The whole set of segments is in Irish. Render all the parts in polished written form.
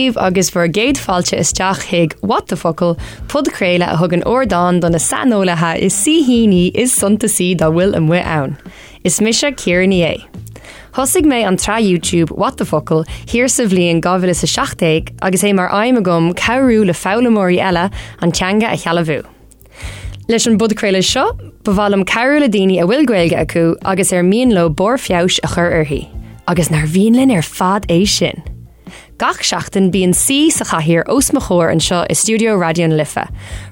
daoibh agus bhur gcéad fáilte isteach chuig What the Focal, podchraoladh a thugann ardán do na saineolaithe is saoithíní is suntasaí dá bhfuil amuigh ann. Is mise Ciara Ní É. Thosaigh mé an tsraith YouTube What the Focal thiar sa bhliain 2017 agus é mar aidhm agam cabhrú le foghlaimeoirí eile an teanga a shealbhú. Leis an bpodchraoladh seo, ba mhaith liom cabhrú le daoine a bhfuil Gaeilge acu agus ar mian leo barr feabhais a chur uirthi. Agus nár mhian linn ar fad é sin? Gach seachtain bíonn saoi sa chathaoir os mo chomhair anseo i stiúideo Raidió na Life.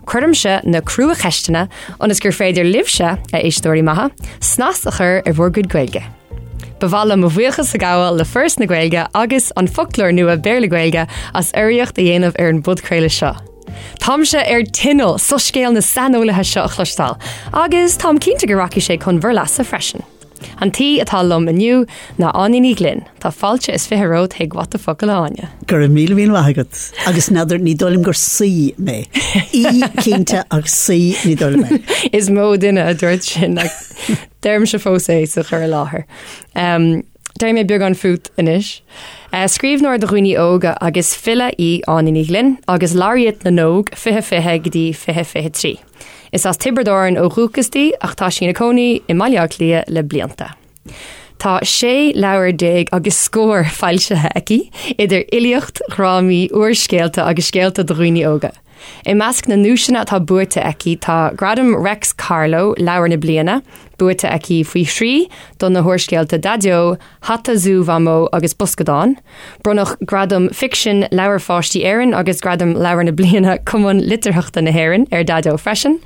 Cuirimse na cruacheisteanna ionas gur féidir libhse, a éisteoirí maithe, snas a chur ar bhur gcuid Gaeilge. Ba mhaith liom mo bhuíochas a ghabháil le Foras na Gaeilge agus An Foclóir Nua Béarla-Gaeilge as urraíocht a dhéanamh ar an bpodchraoladh seo. Táimse ar tinneall soiscéal na saineolaithe seo a chloisteáil, agus táim cinnte go rachaidh sé chun bhur leasa freisin. An t-aoi atá liom inniu ná Áine Ní Ghlinn. Tá fáilte is 20 romhat chuig What the Focal, a Áine. Go raibh míle míle maith agat. Agus n'fheadar, ní dóigh liom gur saoi mé. Aoi cinnte ach saoi ní dóigh liom é. Is mó duine a dúirt sin ach deirimse fós é sa chur i láthair. Um, Déarfaidh mé beagán fút anois. Scríbhneoir do dhaoine óga agus file í Áine Ní Ghlinn agus Laureate na nÓg 2020 go dtí 2023. Is as Tiobraid Árann ó dhúchas di ach tá sí ina cónaí i mBaile Átha Cliath le blianta. Tá 16 leabhar agus scór foilsithe aici, idir fhilíocht, dhrámaí, úrscéalta agus scéalta do dhaoine óga. I measc na nduaiseanna atá buaite aici tá Gradam Reics Carló, Leabhar na Bliana, buaite aici faoi thrí do na húrscéalta Daideo, Hata Zú Mhamó agus Boscadán. Bronnadh Gradam Ficsin Leabhair Pháistí Éireann agus Gradam Leabhar na Bliana Cumann Litearthachta na hÉireann ar Daideo freisin.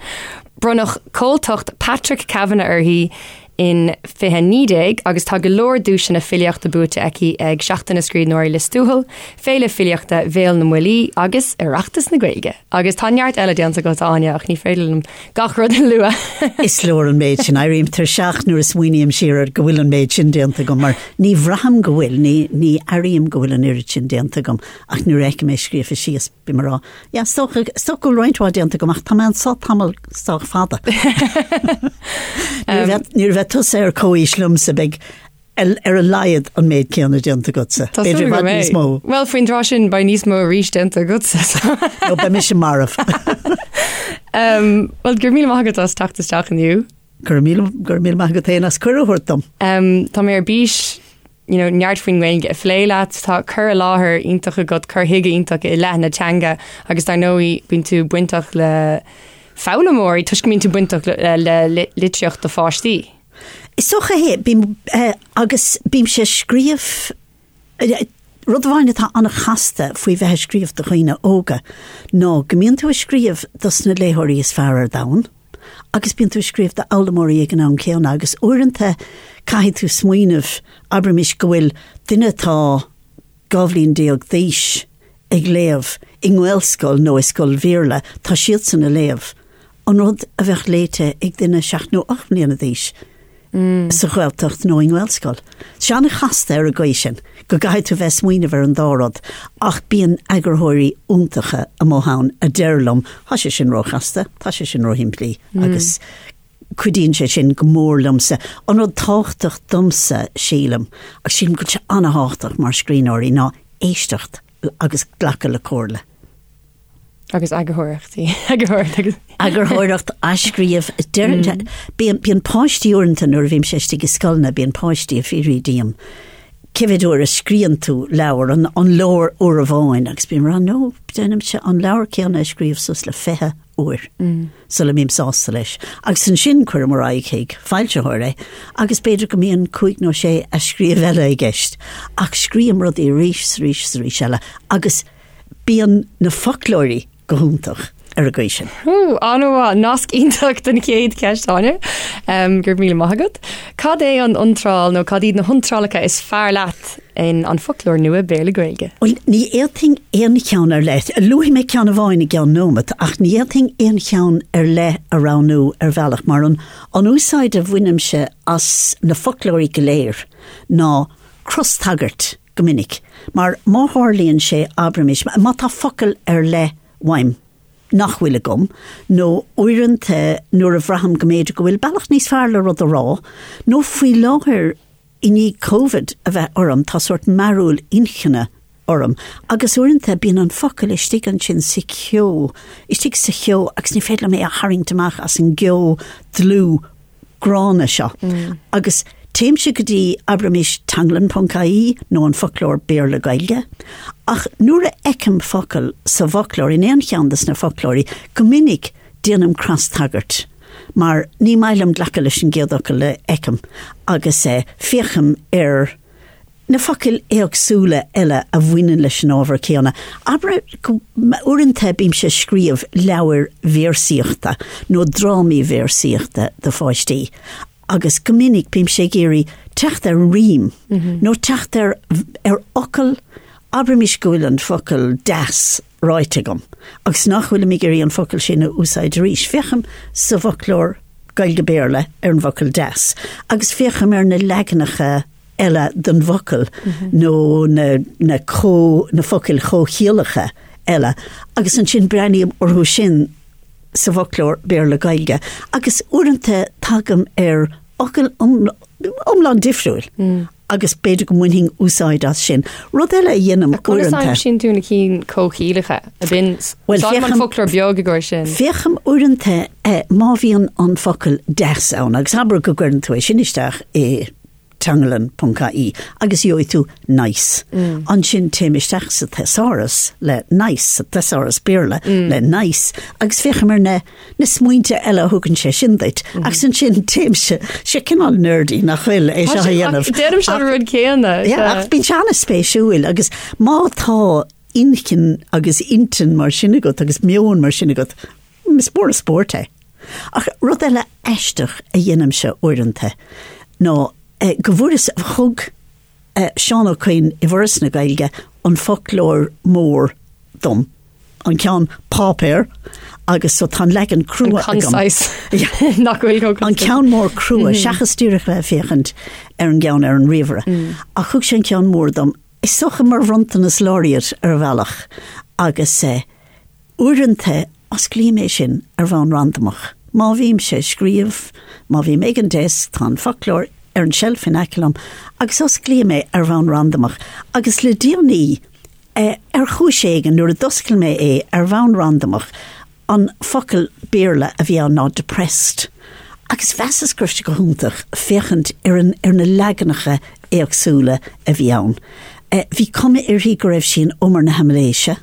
Bronnadh Comhaltacht Patrick Kavanagh uirthi in 2019 agus tá go leor duaiseanna filíochta buaite aici ag Seachtain na Scríbhneoirí Lios Tuathail, Féile Filíochta Bhéal na mBuillí agus Oireachtas na Gaeilge. Agus tá neart eile déanta agat, a Áine, ach ní féidir liom gach rud a lua. Is leor an méid sin. Éirím tuirseach nuair a smaoiním siar air go bhfuil an méid sin déanta agam mar ní bhraithim go bhfuil, ní, ní airím go bhfuil an oiread sin déanta agam ach nuair a fheicim é scríofa síos bím ag rá, Yeah, is dócha, is dócha go bhfuil roinnt mhaith déanta agam ach tá mé anso tamall sách fada. Nuair a bheidh, nuair a bheidh tusa ar comhaois liomsa beidh ar a laghad an méid céanna déanta agatsa. Tá súil B'fhéidir i go bhfad níos mbeidh. mó. Bhuel, faoin dtráth sin beidh níos mó arís déanta agatsa. Nó beidh mise marbh. Um, Bhuel, go raibh míle maith agat as teacht isteach inniu. Go raibh míle, go raibh míle maith agat féin as cuireadh a thabhairt dom. Um, tá mé ar bís you know, neart faoin nGaeilge a phlé leat, tá cur i láthair iontach agat, cur chuige iontach i leith na teanga agus dar ndóigh bíonn tú bainteach le foghlaimeoirí toisc go mbíonn tú bainteach le, le, le litríocht do pháistí. Is dócha é, bím, eh, agus bímse ag scríobh, eh, rud amháin atá an-chasta faoi bheith ag scríobh do dhaoine óga ná go mbíonn tú ag scríobh dos na léitheoirí is fearr ar domhan. Agus bíonn tú ag scríobh d'fhoghlaimeoirí ag an am céanna agus uaireanta caithfidh tú smaoineamh, abraimis go bhfuil duine atá 12 bhliain d'aois ag léamh i nGaelscoil nó i scoil Bhéarla, tá siadsan ag léamh an rud a bheadh léite ag duine seacht nó 8 mbliana d'aois. sa Ghaeltacht nó i nGaelscoil. Tá sé an-chasta ar an gcaoi sin, go gcaithfidh tú bheith ag smaoineamh ar an dá rud, ach bíonn eagarthóirí iontacha amuigh ann a deir liom, tá sé sin róchasta, tá sé sin róshimplí, agus cuidíonn sé sin go mór liomsa. An rud tábhachtach domsa, sílim, agus sílim go bhfuil sé an-thábhachtach mar scríbhneoirí, ná éisteacht agus glacadh le comhairle. Agus eagarthóireachtaí. Eagarthóireacht agus. Eagarthóireacht, athscríobh. Deireann, bíonn, bíonn páistí uaireanta nuair a bhímse istigh i scoileanna, bíonn páistí ag fiafraí díom, cé mhéad uair a scríonn tú leabhar, an, an leor uair amháin? Agus bím ag rá, no, déanaimse an leabhar céanna a scríobh suas le 20 uair sula mbím sásta leis. Agus ansin cuirim ar aghaidh chuig foilsitheoir é agus b'fhéidir go mbíonn cúig nó sé athscríobh eile i gceist. Ach scríobhaim rudaí arís is arís is arís eile agus Bíonn na foclóirí go hiontach ar an gcaoi sin. Ó, an-mhaith. Nasc iontach don chéad cheist, Áine. Go raibh míle maith agat. Cad é an iontráil nó cad iad na hiontrálacha is fearr leat in An Foclóir Nua Béarla-Gaeilge? Bhuel, ní fhéadfainn aon cheann ar leith. Luafaidh mé ceann amháin i gceann nóimeat, ach ní fhéadfainn aon cheann ar leith a roghnú ar bhealach, mar an an úsáid a bhainimse as na foclóirí go léir ná crostagairt. go minic, mar má tharlaíonn sé, abraimis, má tá focal ar leith uaim nach bhfuil agam, nó uaireanta nuair a bhraithim go mb'fhéidir go bhfuil bealach níos fearr le rud a rá, nó faoi láthair i ndiaidh Covid a bheith orm, tá sórt mearúil inchinne. orm agus uaireanta bíonn an focal istigh ansin sa cheo, istigh sa cheo agus ní féidir liom é a tharraingt amach as an gceo dlúth gránna seo. Agus téimse go dtí, abraimis, teanglann ponc ie nó an foclóir Béarla-Gaeilge, ach nuair a fheicim focal sa bhfoclóir, in aon cheann de na foclóirí, go minic déanaim cras-tagairt, mar ní maith liom glacadh leis an gcéad fhocal a fheicim agus féachaim ar na focail éagsúla eile a bhaineann leis an ábhar céanna. Abair go, uaireanta bímse ag scríobh leabhair véarsaíochta nó drámaí véarsaíochta do pháistí agus go minic bímse ag iarraidh teacht ar rím nó teacht ar ar fhocal, abraimis go bhfuil an focal deas ráite agam agus nach bhfuilim ag iarraidh an focal sin a úsáid arís. Féachaim sa bhfoclóir Gaeilge-Béarla ar an bhfocal deas agus féachaim ar na leaganacha eile den bhfocal nó na, na, comh, na focail chomhchiallacha eile agus ansin breathnaím orthu sin sa bhfoclóir Béarla-Gaeilge agus uaireanta tagaim ar fhocal iomlán difriúil agus b'fhéidir go mbainfinn úsáid as sin. Rud eile a dhéanaim uaireanta. Conas a aimsíonn tú na cinn comhchiallacha? Ab in Bhuel, úsáidim an foclóir beag i gcomhair sin. Féachaim uaireanta má bhíonn an focal deas ann agus abair go gcuireann tú é sin isteach i teanglann ponc ie agus gheobhaidh tú nice. Ansin téim isteach sa thesaurus le nice, sa thesaurus Béarla le nice agus féachaim ar na na smaointe eile a thugann sé sin duit. Agus ansin téimse, sé cineál nerdy nach bhfuil é seo a dhéanamh. Déanaimse an rud céanna. Ach bíonn sé an-spéisiúil agus má tá inchinn agus intinn mar sin agat agus meon mar sin agat, is mór an spórt é. Ach rud eile aisteach a dhéanaimse uaireanta ná go bhfuaireas, thug Seán Ó Coinn i bhForas na Gaeilge an foclóir mór dom, an ceann páipéir, agus so tá an leagan crua agam. An concise. Nach bhfuil chomh An ceann mór crua, seachas díreach bheith ag féachaint ar an gceann ar an ríomhaire. Ach thug sé an ceann mór dom, is dócha mar bhronntanas laureate ar bhealach, agus Uaireanta, osclaím é sin ar bhonn randamach. Má bhímse ag scríobh, má bhím ag an desk, tá an foclóir ar an tseilf in aice liom, agus osclaím é ar bhonn randamach. Agus le déanaí, ar chúis éigin, nuair a d'oscail mé é ar bhonn randamach, an focal Béarla a bhí ann ná depressed. Agus mheasas go raibh sé go hiontach féachaint ar an, ar na leaganacha éagsúla a bhí ann. Bhí cuma uirthi go raibh sí in umar na haimiléise.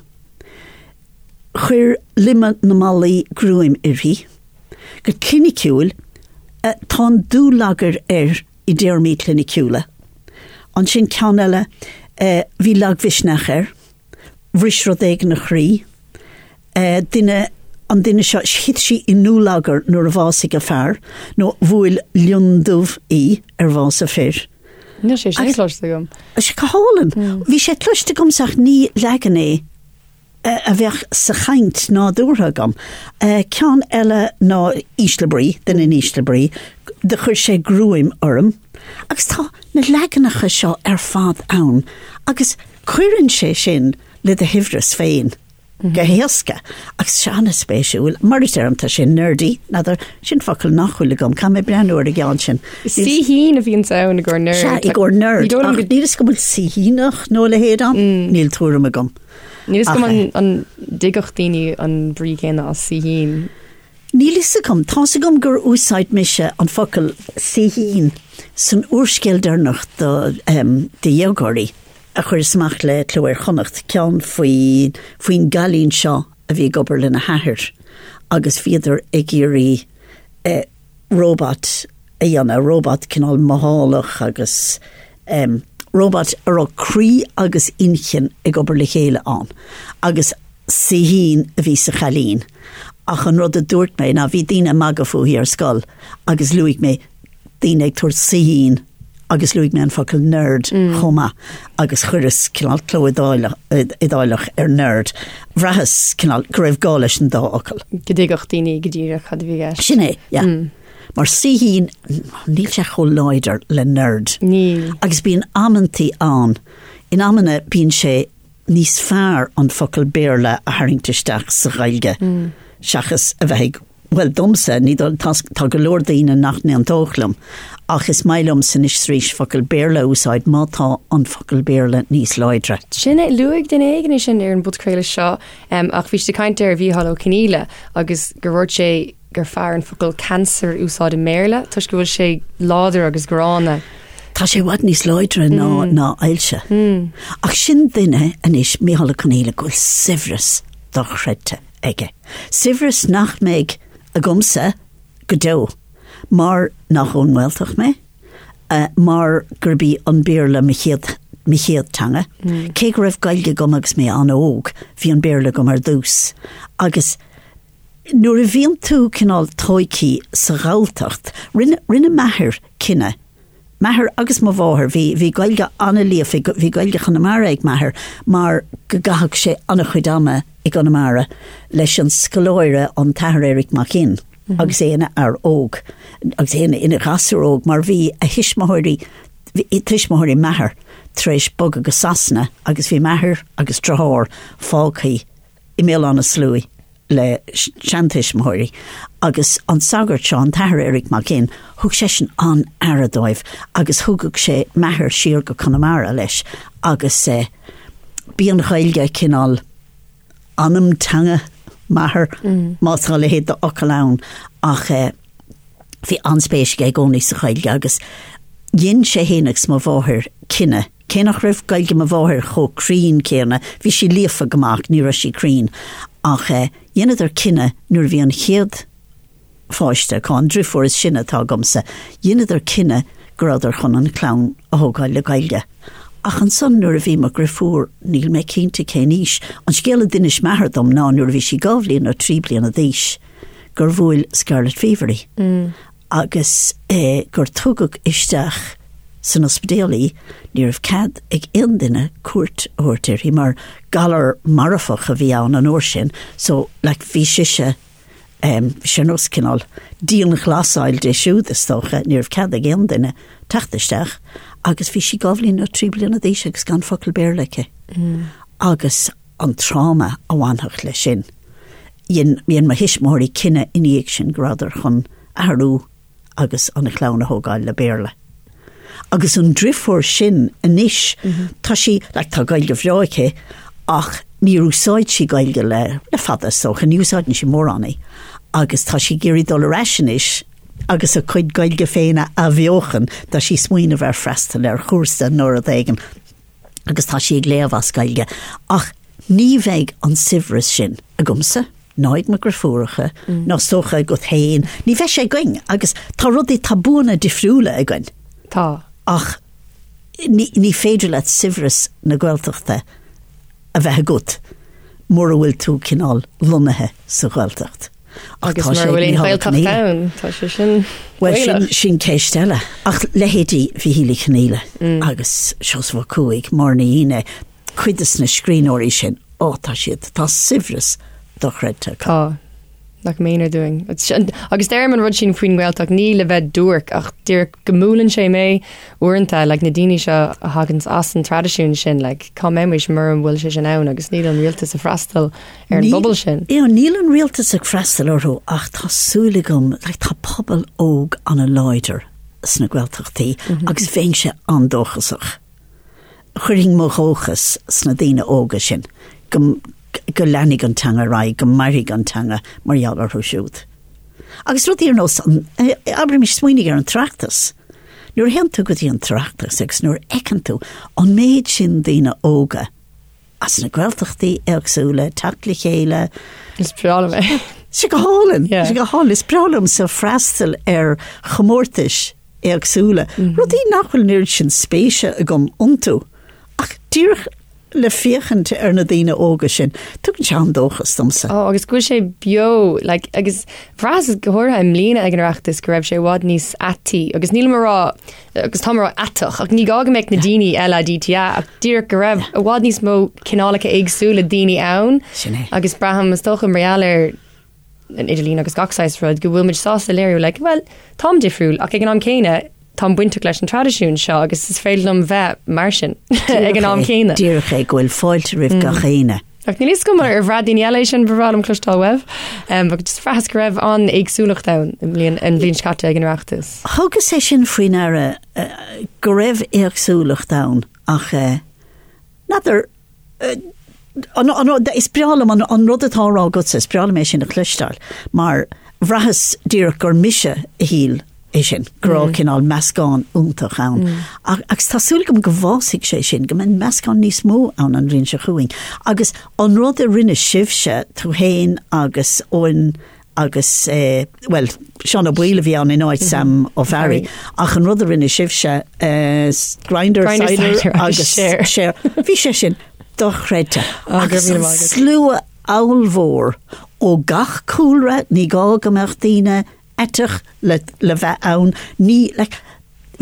Chuir loimeadh na mballaí gruaim uirthi. Go cliniciúil, tá an dúlagar air i dtéarmaí cliniciúla. Ansin ceann eile, bhí lagmhisneach air, bhris rud éigin a chroí. Duine, an duine seo, thit sí i ndúlagar nuair a bhásaigh a fear, nó bhuail lionndubh í ar bhás a fir. Níl sé sin cloiste agam. Tá sé go hálainn. Bhí sé cloiste agamsa ach ní leagan é a bheadh sa chaint nádúrtha agam. Ceann eile ná ísle brí, duine in ísle brí, do chuir sé gruaim orm. Agus tá na leaganacha seo ar fad ann agus cuireann sé sin le do shaibhreas féin. go héasca agus sé an-spéisiúil. Mar a deirim, tá sé nerdy, n'fheadar, sin focal nach bhfuil agam, caithfidh mé breathnú ar an gceann sin. Saoithín a bhíonn ann i gcomhair nerd. Sea, i gcomhair nerd, ach níl fhios agam bhfuil saoithíneach nó a leithéid ann, níl tuairim agam. Níl fhios agam an dtuigfeadh daoine an brí céanna as saoithín. Níl fhios agam. Tá's agam gur úsáid mise an focal saoithín san úrscéal deireanach do dhéagóirí a chuireas amach le Cló Iar-Chonnacht, ceann faoi faoin gcailín seo a bhí ag obair lena hathair agus bhíodar ag iarraidh robot a dhéanamh, robot cineál mothálach agus robot a raibh croí agus inchinn ag obair le chéile ann agus saoithín a bhí sa chailín. Ach an rud a dúirt mé ná bhí daoine ag magadh fúithi ar scoil agus luaigh mé daoine ag tabhairt saoithín agus luaigh mé an focal nerd chomh maith agus chuireas cineál cló iodáileach ar nerd. Bhraitheas cineál go raibh gá leis an dá fhocal. Go dtuigfeadh daoine go díreach cad a bhí i gceist. Sin é, yeah. Mar saoithín, níl sé chomh láidir le nerd. Níl. Agus bíonn amantaí ann, in amanna bíonn sé níos fearr an focal Béarla a tharraingt isteach sa Ghaeilge seachas a bheith ag. Bhuel, domsa, ní dóigh, tá, tá go leor daoine nach n-aontódh liom, ach is maith liomsa anois is arís focal Béarla a úsáid má tá an focal Béarla níos láidre. Sin é, luaigh duine éigin é sin ar an bpodchraoladh seo, ach bhí siad ag caint ar Mhícheál Ó Conghaile agus gur dhúirt sé gur fearr an focal cancer a úsáid i mBéarla toisc go bhfuil sé láidir agus gránna. Tá sé i bhfad níos láidre ná, ná ailse. Ach sin duine anois, Mícheál Ó Conghaile, go bhfuil saibhreas dochreidte. aige. Saibhreas nach mbeidh agamsa go deo, mar nach ón nGaeltacht mé, mar gurb í an Béarla mo chéad, mo chéad teanga. Cé go raibh Gaeilge agam agus mé an-óg, bhí an Béarla agam ar dtús. Agus nuair a bhíonn tú cineál tóigthe sa Ghalltacht, rinne, rinne m'athair cinneadh M'athair agus mo mháthair, bhí, bhí Gaeilge an-líofa, bhí Gaeilge Chonamara ag m'athair mar go gcaitheadh sé an-chuid ama i gConamara leis an scoláire, an tAthair Eric Mac Fhinn, agus é ina fhear óg, agus é ina, ina ghasúr óg mar bhí a thuismitheoirí, bhí tuismitheoirí m'athar tar éis bogadh go Sasana agus bhí m'athair agus deartháir fágtha i mBéal Átha na Sluaighe le seantuismitheoirí agus an sagart seo, an tAthair Eric Mac Fhinn, thug seisean an-aire dóibh agus thugadh sé m'athair siar go Conamara leis agus b'í an Ghaeilge cineál anam teanga m'athar, má tá a leithéid d'fhocal ann, ach bhí an-spéis aige i gcónaí sa Ghaeilge agus dhein sé fhéin agus mo mháthair cinneadh Cé nach raibh Gaeilge mo mháthair chomh cruinn céanna, bhí sí líofa go maith ach ní raibh sí cruinn, ach dheineadar cinneadh nuair a bhí an chéad pháiste acu, an driofúr is sine atá agamsa, dheineadar cinneadh go rabhadar chun an chlann a thógáil le Gaeilge. Ach ansan nuair a bhí mo dhriofúr, níl mé cinnte cén aois, an scéal a d'inis m'athair dom ná nuair a bhí sí dhá bhliain nó trí bliana d'aois gur bhuail Scarlet Fever í. agus gur tugadh isteach san ospidéal í, ní raibh cead ag aon duine cuairt a thabhairt uirthi mar galar marfach a bhí ann an uair sin, so like bhí sise em bhí sé ar nós cineál dianghlasáil di siúd is dócha, ní raibh cead ag aon duine teacht isteach agus bhí sí dhá bhliain nó trí bliana d'aois agus gan focal Béarla aici. Agus an tráma a bhainfeadh leis sin. Dhein dhein mo thuismitheoirí cinneadh ina dhiaidh sin go rabhadar chun athrú agus an chlann a thógáil le Béarla. Agus an driofúr sin anois, tá sí, like, tá Gaeilge bhreá aici ach níor úsáid sí Gaeilge le, le fada is dócha, ní úsáideann sí mórán í. Agus tá sí ag iarraidh dul ar ais anois agus a cuid Gaeilge féin a athbheochan, tá sí ag smaoineamh ar freastal ar chúrsa nó rud éigin. agus tá sí ag léamh as Gaeilge, ach ní bheidh an saibhreas sin agamsa, ná ag mo dhriofúracha, ná is dócha agat féin, ní bheidh sé againn agus tá rudaí, tá buanna difriúla againn. Tá. Ach ní, ní féidir leat saibhreas na Gaeltachta a bheith agat mura bhfuil tú cineál lonnaithe sa Ghaeltacht. Agus mura bhfuil aon Ghaeltacht ann, tá sé sin Bhuel, sin, sin ceist eile. Ach leithéidí Mhichíl Uí Chonghaile agus Seosamh Ó Cuaig, Máire Ní Fhionnaith, cuid de na scríbhneoirí sin, ó, tá siad, tá saibhreas dochreidte acu. Tá. Nach méanar dúinn. Agus deirim an rud sin faoin nGaeltacht, ní le bheith duairc ach díreach go mbuaileann sé mé uaireanta, like, na daoine seo a thaganns as an traidisiún sin, like, cá mbeimis mura bhfuil sé sin ann agus níl an rialtas ag freastal ar an bpobal sin. Níl, níl an rialtas ag freastal orthu ach tá súil agam, like, tá pobal óg an-láidir sna Gaeltachtaí agus bheinnse an-dóchasach. Chuirfinn mo dhóchas sna daoine óga sin go, go leanfaidh an teanga ar aghaidh, go mairfidh an teanga mar gheall orthu siúd. Agus rudaí ar nós an, abraimis, smaoinigh ar an tOireachtas. Nuair a théann tú go dtí an tOireachtas agus nuair a fheiceann tú an méid sin daoine óga, as na Gaeltachtaí éagsúla teacht le chéile. Is breá liom é. Sé go hálainn, sé go hálainn. Is breá liomsa freastal ar chomórtais éagsúla, rudaí nach bhfuil an oiread sin spéise agam iontu, ach díreach le féachaint ar na daoine óga sin, tugann sé an-dóchas domsa. Ó, agus go bhfuil sé beo, like, agus bhraitheas go háirithe i mbliana ag an Oireachtas go raibh sé i bhfad níos aitaí, agus nílim a rá agus táim a rá aiteach, ach ní gá go mbeadh na daoine LADTA ach díreach go raibh i bhfad níos mó cineálacha éagsúla daoine ann. Sin é. Agus braithim is dócha mar gheall ar an idirlíon agus gach saghas rud go bhfuil muid sásta léiriú like, well, táim difriúil ach ag an am céanna táim bainteach leis an traidisiún seo agus is féidir liom bheith mar sin ag an am céanna. Díreach é go bhfuil fáilte roimh gach éinne. Ach níl fhios agam ar bhraith daoine eile é sin ba bhreá liom cloisteáil uaibh. Ach just bhraitheas go raibh an-éagsúlacht ann i mbliain, an bhliain seo caite ag an Oireachtas. Thugas é sin faoi ndeara go raibh éagsúlacht ann ach n'fheadar Is breá liom an rud atá á rá agatsa, is breá liom é sin a chloisteáil, mar bhraitheas díreach gur mise a shíl é sin, go raibh cineál meascán iontach ann. Agus tá súil agam go bhfásfaidh sé sin, go mbeidh meascán níos mó ann an bhliain seo chugainn. Agus an rud a rinne sibhse, tú féin agus Eoin agus, bhuel, Seán Ó Baoill a bhí ann in áit Sam Ó Fearraigh, ach an rud a rinne sibhse, Grindr, Cider agus Share, bhí sé sin dochreidte. Agus an slua ollmhór ó gach cúlra, ní gá go mbeadh daoine aiteach le le bheith ann, ní, like,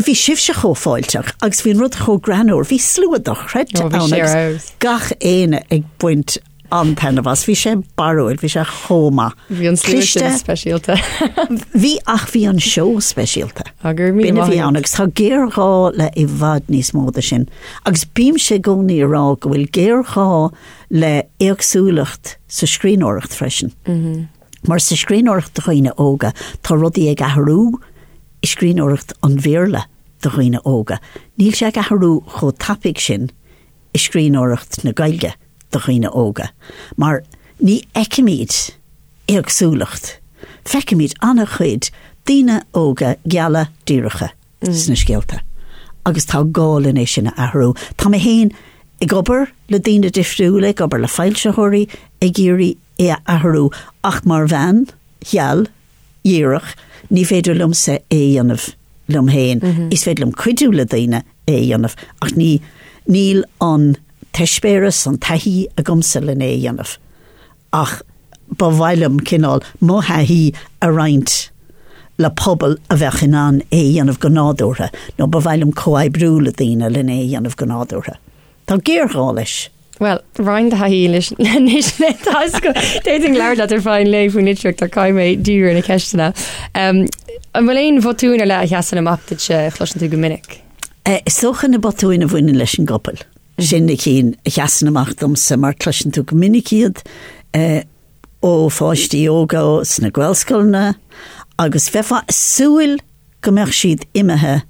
bhí sibhse chomh fáilteach agus bhí an rud chomh greannmhar, bhí slua dochreidte ann agus gach éinne ag baint an-taitneamh as. Bhí sé barrúil, bhí sé chomh maith. Bhí an slua sin speisialta. Bhí ach bhí an seó speisialta. B'in a bhí ann agus tá géarghá le i bhfad níos mó de sin. Agus bímse i gcónaí ag rá go bhfuil géarghá le éagsúlacht sa scríbhneoireacht freisin. Mar sa scríbhneoireacht do dhaoine óga tá rudaí ag athrú i scríbhneoireacht an Bhéarla do dhaoine óga. Níl sé ag athrú chomh tapaidh sin i scríbhneoireacht na Gaeilge do dhaoine óga, mar ní fheicimid éagsúlacht, feicimid an-chuid daoine óga geala díreacha sna scéalta agus tá gá linn é sin a athrú. Tá mé féin ag obair le daoine difriúla, ag obair le foilsitheoirí ag iarraidh é a athrú ach mar bhean gheal, dhíreach, ní féidir liomsa é a dhéanamh liom féin. Is féidir liom cuidiú le daoine é a dhéanamh ach ní, níl an t-eispéireas, an taithí agamsa len é a dhéanamh. Ach ba mhaith liom cineál mo thaithí a roinnt le pobal a bheadh in ann é a dhéanamh go nádúrtha, nó ba mhaith liom comhoibriú le daoine len é a dhéanamh go nádúrtha. Tá géarghá leis. Bhuel, roinn do thaithí anois linn. D'fhéadfainn labhairt leat ar feadh an lae faoin litríocht ach caithfidh mé díriú ar na ceisteanna. An bhfuil aon bhotúin ar leith a sheasann amach duitse a chloiseann tú go minic? Is dócha na botúin a bhaineann leis an gcopail. Sin na cinn a sheasann amach domsa mar cloiseann tú go minic iad ó pháistí óga sna Gaelscoileanna agus bheifeá ag súil go mbeadh siad imithe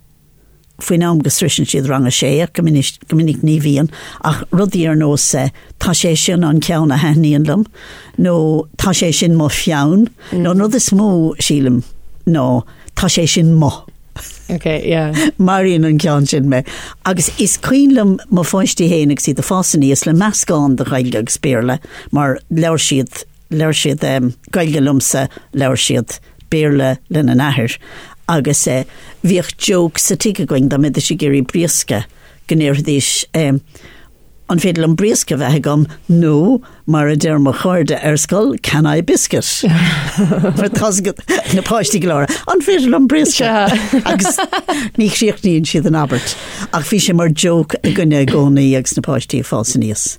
faoin am go sroiseann siad rang a sé, ach go minic, go minic ní bhíonn, ach rudaí ar nós 'tá sé sin an ceann a thaitníonn liom' nó 'tá sé sin mo pheann' nó an rud is mó, sílim, ná 'tá sé sin mo'. Ok, yeah. Maraíonn an ceann sin mé. Agus is cuimhin liom mo pháistí féin agus iad ag fás aníos le meascán de Ghaeilge agus Béarla mar labhair siad Labhair siad Gaeilge liomsa, labhair siad Béarla lena n-athair agus bhíodh joke sa tigh againn dá mbeidís ag iarraidh briosca go ndéarfaidís an féidir liom briosca a bheith agam nó mar a deir mo chairde ar scoil can I biscuit? Mar tá na páistí go léir an féidir liom briosca? Agus ní chríochnaíonn siad an abairt. Ach bhí sé mar joke againne i gcónaí agus na páistí ag fás aníos.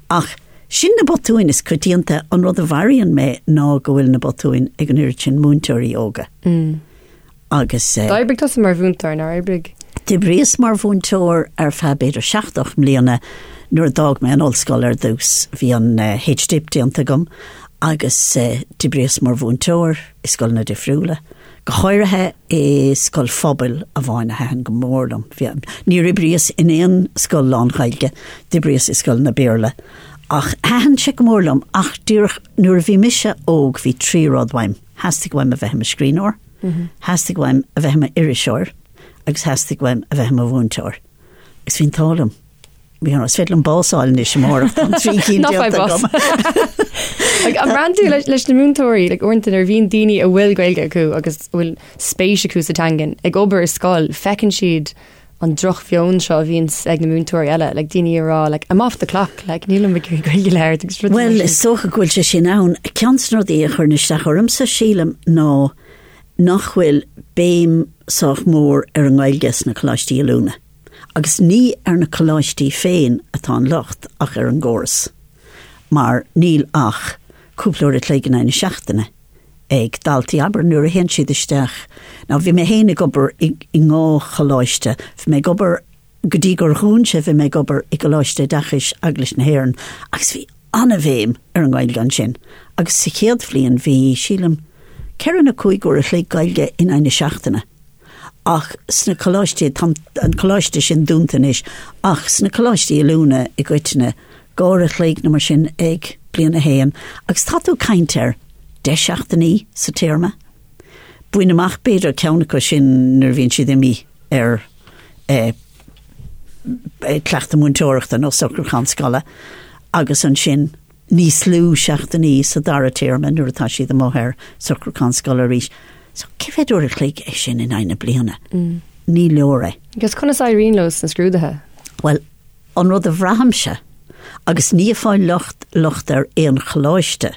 Ach Sin na botúin is coitianta. An rud a mharaíonn mé ná go bhfuil na botúin ag an oiread sin múinteoirí óga. Agus. D'oibrigh tusa mar mhúinteoir, nár oibrigh? D'oibríos mar mhúinteoir ar feadh b'fhéidir seacht, ocht mbliana nuair a d'fhág mé an ollscoil ar dtús. Bhí an H-Dip déanta agam agus d'oibríos mar mhúinteoir i scoileanna difriúla. Go háirithe i scoil phobail amháin a thaitin go mór liom. Níor oibríos in aon scoil lán-Ghaeilge, d'oibríos i scoileanna Béarla. Ach thaitin sé go mór liom ach díreach nuair a bhí mise óg bhí trí rud uaim, theastaigh uaim a bheith i mo scríbhneoir, theastaigh uaim a bheith i m'iriseoir agus theastaigh uaim a bheith i mo mhúinteoir. Agus bhí an t-ádh liom. You know, is féidir liom bás a fháil anois amárach tá an trí cinn Ná faigh déanta bás. agam. Like, an mbraitheann tú leis, leis na múinteoirí, like, uaireanta nuair a bhíonn daoine a bhfuil Gaeilge acu agus a bhfuil spéis acu sa teangain ag obair i scoil, feiceann siad an drochmheon seo a bhíonn ag na múinteoirí eile, like, daoine ag rá, like, I'm off the clock, like, nílim ag iarraidh Gaeilge a labhairt agus rudaí mar Bhuel, sin. is dócha go bhfuil sé sin ann. Ceann de na rudaí a chuireann isteach ormsa, sílim, ná nach bhfuil béim sách mór ar an nGaeilge sna coláistí oiliúna. Agus ní ar na coláistí féin atá an locht ach ar an gcóras, mar níl ach cúpla uair a chloig in aghaidh na seachtaine ag daltaí, abair, nuair a théann siad isteach. Now bhí mé féin ag obair i ndhá choláiste, bhí mé ag obair, go dtí gur dhún sé, bhí mé ag obair i gColáiste Oideachais Eaglais na hÉireann agus bhí. an-bhéim ar an nGaeilge ansin agus sa chéad bhliain bhí, sílim, ceithre nó cúig uair a chloig Gaeilge in aghaidh na seachtaine. Ach sna coláistí, tá an coláiste sin dúnta anois, ach sna coláistí oiliúna i gcoitinne, dhá uair a chloig nó mar sin ag bliain a haon agus tá tú ag caint ar deich seachtainí sa téarma. Bain amach b'fhéidir ceann acu sin nuair a bhíonn siad imithe ar eh, cleachtadh múinteoireachta nó socrúchán scoile agus ansin níos lú seachtainí sa dara téarma nuair atá siad amuigh ar socrúchán scoile arís. So cé mhéad uair a chloig é sin in aghaidh na bliana? Ní leor é. Agus conas a éiríonn leo sna scrúduithe? Bhuel, an rud a bhraithimse, agus ní ag fáil locht locht ar aon choláiste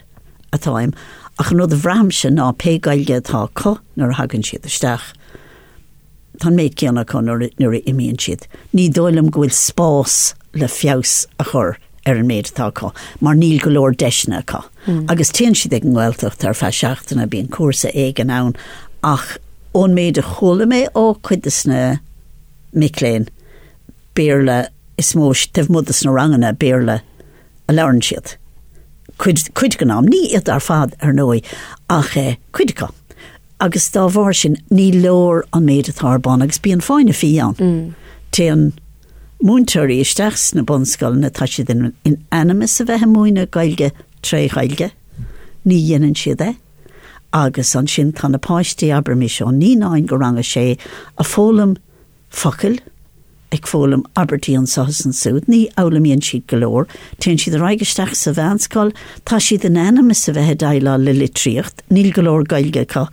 atáim, ach an rud a bhraithimse ná pé Gaeilge atá acu nuair a thagann siad isteach, Tá an méid céanna acu nuair a imíonn siad. Ní dóigh liom go bhfuil spás le feabhas a chur ar an méid atá acu mar níl go leor deiseanna acu. Agus téann siad ag an nGaeltacht ar feadh seachtaine, bíonn cúrsa éigin ann ach ón méid a chuala mé ó chuid de na mic léinn, Béarla is mó, taobh amuigh de sna ranganna, Béarla a labhrann siad. Cuid, cuid den am. Ní iad ar fad, ar ndóigh, ach cuid acu. Agus dá bharr sin, ní leor an méid atá ar bun agus bíonn fáinne fí ann. Téann múinteoirí isteach sna bunscoileanna, tá siad in in ainm is a bheith ag múineadh Gaeilge tré Ghaeilge, ní dhéanann siad é. Agus ansin tá na páistí, abraimis, ó naíonáin go rang a sé, ag foghlaim focail, ag foghlaim abairtí anseo is ansúd, ní fhoghlaimíonn siad go leor, téann siad ar aghaidh isteach sa mheánscoil, tá siad in ainm is a bheith ag déileáil le litríocht, níl go leor Gaeilge acu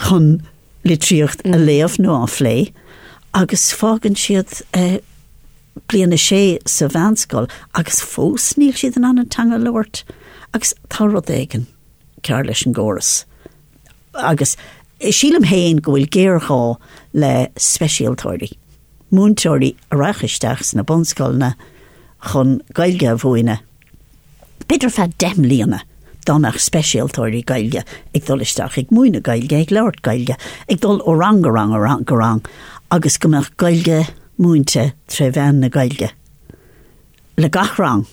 chun litríocht a léamh nó a phlé, agus fágann siad bliain a sé sa mheánscoil agus fós níl siad in ann an teanga a labhairt agus tá rud éigin cearr leis an gcóras. Agus sílim féin go bhfuil géarghá le speisialtóirí, múinteoirí a rachadh isteach sna bunscoileanna chun Gaeilge a mhúineadh, b'fhéidir ar feadh 10 mbliana, dá mbeadh speisialtóirí Gaeilge ag dul isteach ag múineadh Gaeilge, ag labhairt Gaeilge, ag dul ó rang go rang ó rang go rang agus go mbeadh Gaeilge múinte tré mheán na Gaeilge. le gach rang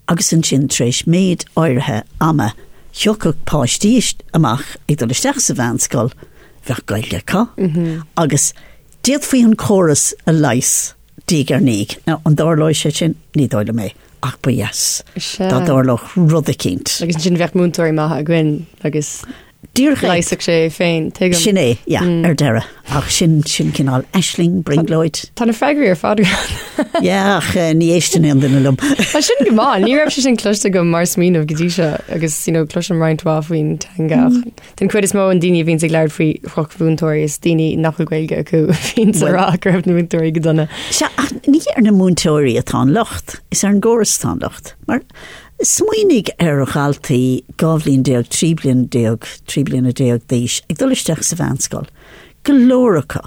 agus ansin tar éis méid áirithe ama thiocfadh páistí amach ag dul isteach sa mheánscoil, bheadh Gaeilge acu agus d'fhéadfaí an córas a leigheas diaidh ar ndiaidh. Now an dtarlóidh sé sin? Ní dóigh liom é ach ba dheas dá dtarlódh rud eicínt. Agus ansin bheadh múinteoirí maithe againn agus Díreach é. Leigheasfadh sé é féin, tuigim. Sin é, yeah, ar deireadh. Ach sin, sin cineál aisling, brionglóid. Tá na freagraí ar fad agat. Yeah, ach eh, ní éisteann aon duine liom. Tá sin go maith, ní raibh sé sin cloiste agam mar smaoineamh go dtí seo agus you know, cloisim roinnt mhaith faoin teanga ach den chuid is mó an daoine a bhíonns ag labhairt faoi dhrochmhúinteoirí is daoine nach bhfuil Gaeilge acu a bhíonns ag rá go raibh na múinteoirí go dona. Sea, ach ní ar na múinteoirí atá an locht, is ar an gcóras atá an locht. Mar Smaoinigh ar dhaltaí 12 bhliain, 13 bliain, 13 bliana d'aois ag dul isteach sa mheánscoil, go leor acu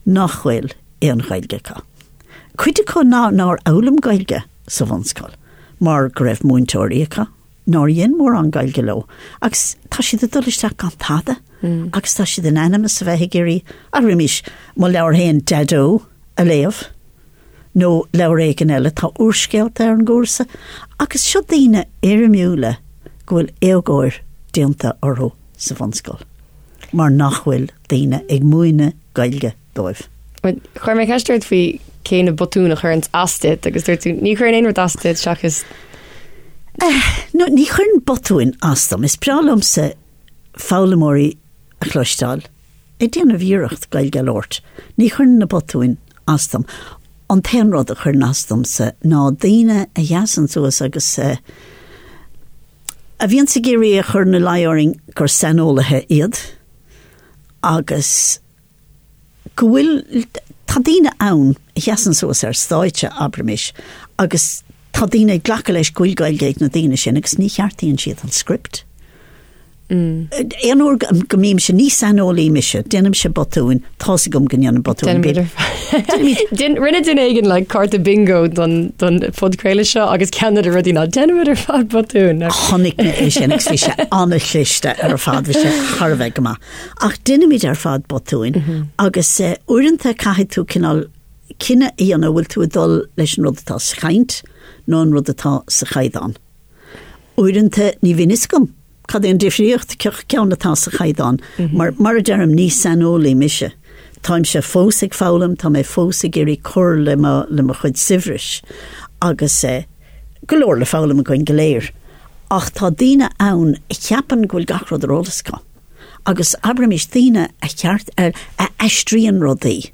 nach bhfuil aon Ghaeilge acu. Cuid acu nár fhoghlaim Gaeilge sa bhunscoil mar go raibh múinteoirí acu nár dhein mórán Gaeilge leo agus tá siad ag dul isteach gan tada agus tá siad in ainm is a bheith ag iarraidh, abraimis, mo leabhar féin Daideo a léamh. nó leabhar éigin eile, tá úrscéalta ar an gcúrsa, agus seo daoine éirimiúla go bhfuil éagóir déanta orthu sa bhunscoil, mar nach bhfuil daoine ag múineadh Gaeilge dóibh. Chuir mé ceist ort faoi cé na botúin a chuireann as duit agus dúirt tú ní chuireann aon rud as duit seachas. No, ní chuireann botúin as dom. Is breá liomsa foghlaimeoirí a chloisteáil ag déanamh iarracht Gaeilge a labhairt. Ní chuireann na botúin as dom. An t-aon rud a chuireann as domsa ná daoine a sheasann suas agus a bhíonns ag iarraidh a chur ina luí orainn gur saineolaithe iad agus go bhfuil, tá daoine ann a sheasann suas ar stáitse, abraimis, agus tá daoine ag glacadh leis go bhfuil Gaeilge ag na daoine sin agus ní cheartaíonn siad an script. Aon uair go mbímse, ní saineolaí mise, déanaimse botúin, tá's agam go ndéanaim botúin. Rinne duine éigin like cárta bingo don don phodchraoladh seo agus ceann de na rudaí ná déanaimid ar fad botúin. Chonaic mé é sin agus bhí sé an-chliste ar fad, bhí sé thar a bheith go maith. Ach déanaimid ar fad botúin agus uaireanta caithfidh tú cineál cinneadh a dhéanamh bhfuil tú ag dul leis an rud atá sa chaint nó an rud atá sa chaighdeán. Uaireanta ní bhíonn fhios agam cad é an difríocht, cén ceann atá sa chaighdeán. Mar, mar a deirim, ní saineolaí mise. Táimse fós ag foghlaim, tá mé fós ag iarraidh cur le mo, le mo chuid saibhris agus eh, go leor le foghlaim againn go léir. Ach tá daoine ann a cheapann go bhfuil gach rud ar eolas acu. Agus abraimis daoine a cheart, a, a aistríonn rudaí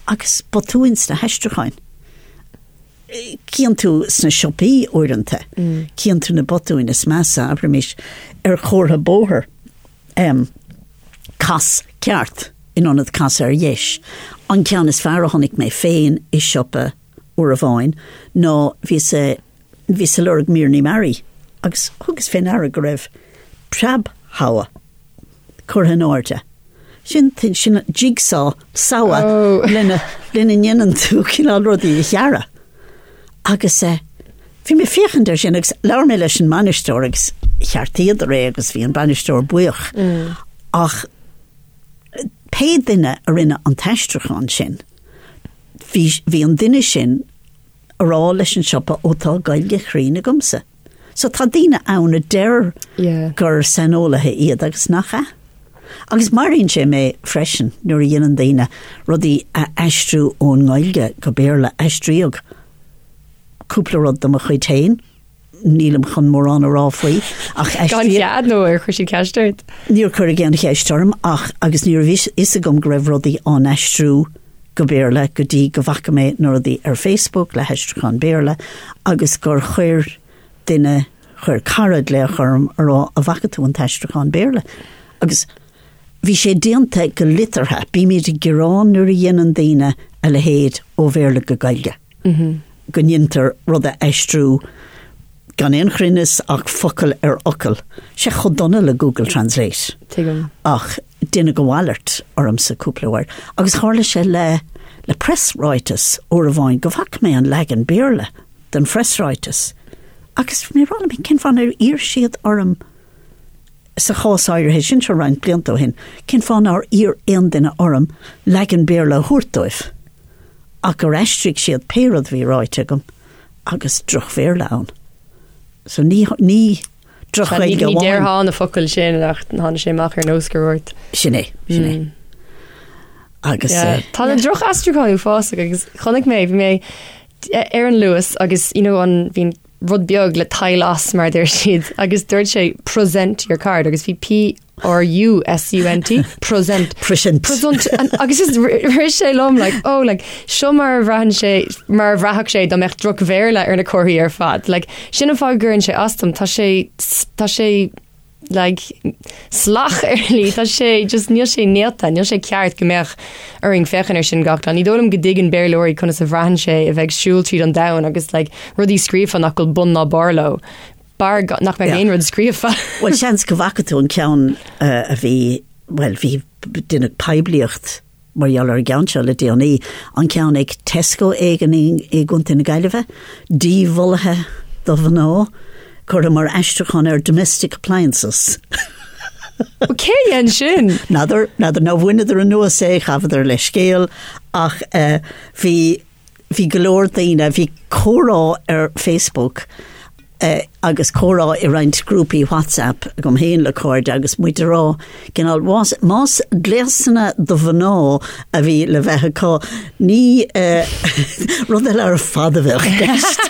agus botúin sna haistriúcháin. Cíonn tú sna siopaí uaireanta, cíonn tú na botúin is measa, abraimis, ar chomhartha bóthair, cas ceart in ionad cas ar dheis. An ceann is fearr a chonaic mé féin i siopa uair amháin ná bhíos bhíos ag lorg míreanna mearaí agus thugas fé ndeara go raibh preab-shabha curtha in airde. Sin sin jigsaw, sabha oh. lena lena ndéanann tú cineál rudaí a ghearradh. Agus eh, bhí mé féachaint ar sin agus labhair mé leis an mbainisteoir agus cheartaíodar é agus bhí an bainisteoir buíoch. Mm. Ach pé duine a rinne an t-aistriúchán sin, bhí, bhí an duine sin a rá leis an siopa ó tá Gaeilge chruinn agamsa. So tá daoine ann a deir gur saineolaithe iad agus nach ea. Agus maraíonn sé mé freisin nuair a dhéanann daoine rudaí a aistriú ón nGaeilge go Béarla. Aistríodh cúpla rud de mo chuid féin, nílim chun mórán a rá faoi, ach aistríodh. Gan chead nó ar chuir siad ceist ort? Níor cuireadh aon cheist orm ach agus ní raibh fhios agam go raibh rudaí á n-aistriú go Béarla go dtí go bhfaca mé na rudaí ar Facebook le haistriúchán Béarla agus gur chuir duine, chuir cara glaoch orm a rá an bhfaca tú an t-aistriúchán Béarla? Agus bhí sé déanta go liteartha, bímid ag gearán nuair a dhéanann daoine a leithéid ó Bhéarla go Gaeilge, go ndéantar rud a aistriú gan aon chruinneas ach focal ar fhocal. Sé chomh dona le Google Translate. Tuigim. Ach Deineadh a mhalairt ormsa cúpla uair agus tharla sé le le preasráiteas uair amháin go bhfaca mé an leagan Béarla den phreasráiteas agus bhí mé ag rá liom féin cén fáth nár iarr siad orm sa chás áirithe sin seo roinnt blianta ó shin, cén fáth nár iarr aon duine orm leagan Béarla a thabhairt dóibh ach gur aistrigh siad pé rud a bhí ráite agam agus droch-Bhéarla ann. So ní ní Droch-Ghaeilge amháin. Ní déarfá na focail sin ach tháinig sé amach ar nós gur dhúirt. Sin é, sin é. Mm. Agus yeah. Eh, Tá na droch-aistriúcháin uafásach agus chonaic mé bhí mé ar an Luas agus you know, an bhíonn rud beag le tadhall as mar deir siad agus dúirt sé present your card agus bhí P R U S U N T present present present agus is rith sé liom like oh like seo mar a bhraitheann sé mar a bhraithfeadh sé dá mbeadh droch-Bhéarla ar na comharthaí ar fad like sin an fáth go gcuireann sé as dom tá sé tá sé like salach ar shlí tá sé just níl sé néata níl sé ceart go mbeadh orainn féachaint ar sin gach lá ní dóigh liom go dtuigeann Béarlóirí conas a bhraitheann sé a bheith ag siúl tríd an domhan agus like rudaí scríofa nach bhfuil bun ná barr leo B'fhearr nach mbeadh aon rud scríofa. Bhuel, seans go bhfaca tú an ceann a bhí, bhuel, bhí, deineadh poiblíocht mar gheall ar an gceann seo le déanaí, an ceann ag Tesco éigin i gContae na Gaillimhe, díbholaithe do mhná, curtha mar aistriúchán ar domestic appliances. Cé a dhein sin? N'fheadar, n'fheadar, nó bhaineadar anuas é, ghabhadar leithscéal, ach bhí, bhí go leor daoine, bhí comhrá ar Facebook agus comhrá i roinnt grúpaí WhatsApp agam féin le cairde agus muid ag rá cineál más, más gléasanna do mhná a bhí le bheith acu, ní rud eile ar fad a bheadh i gceist.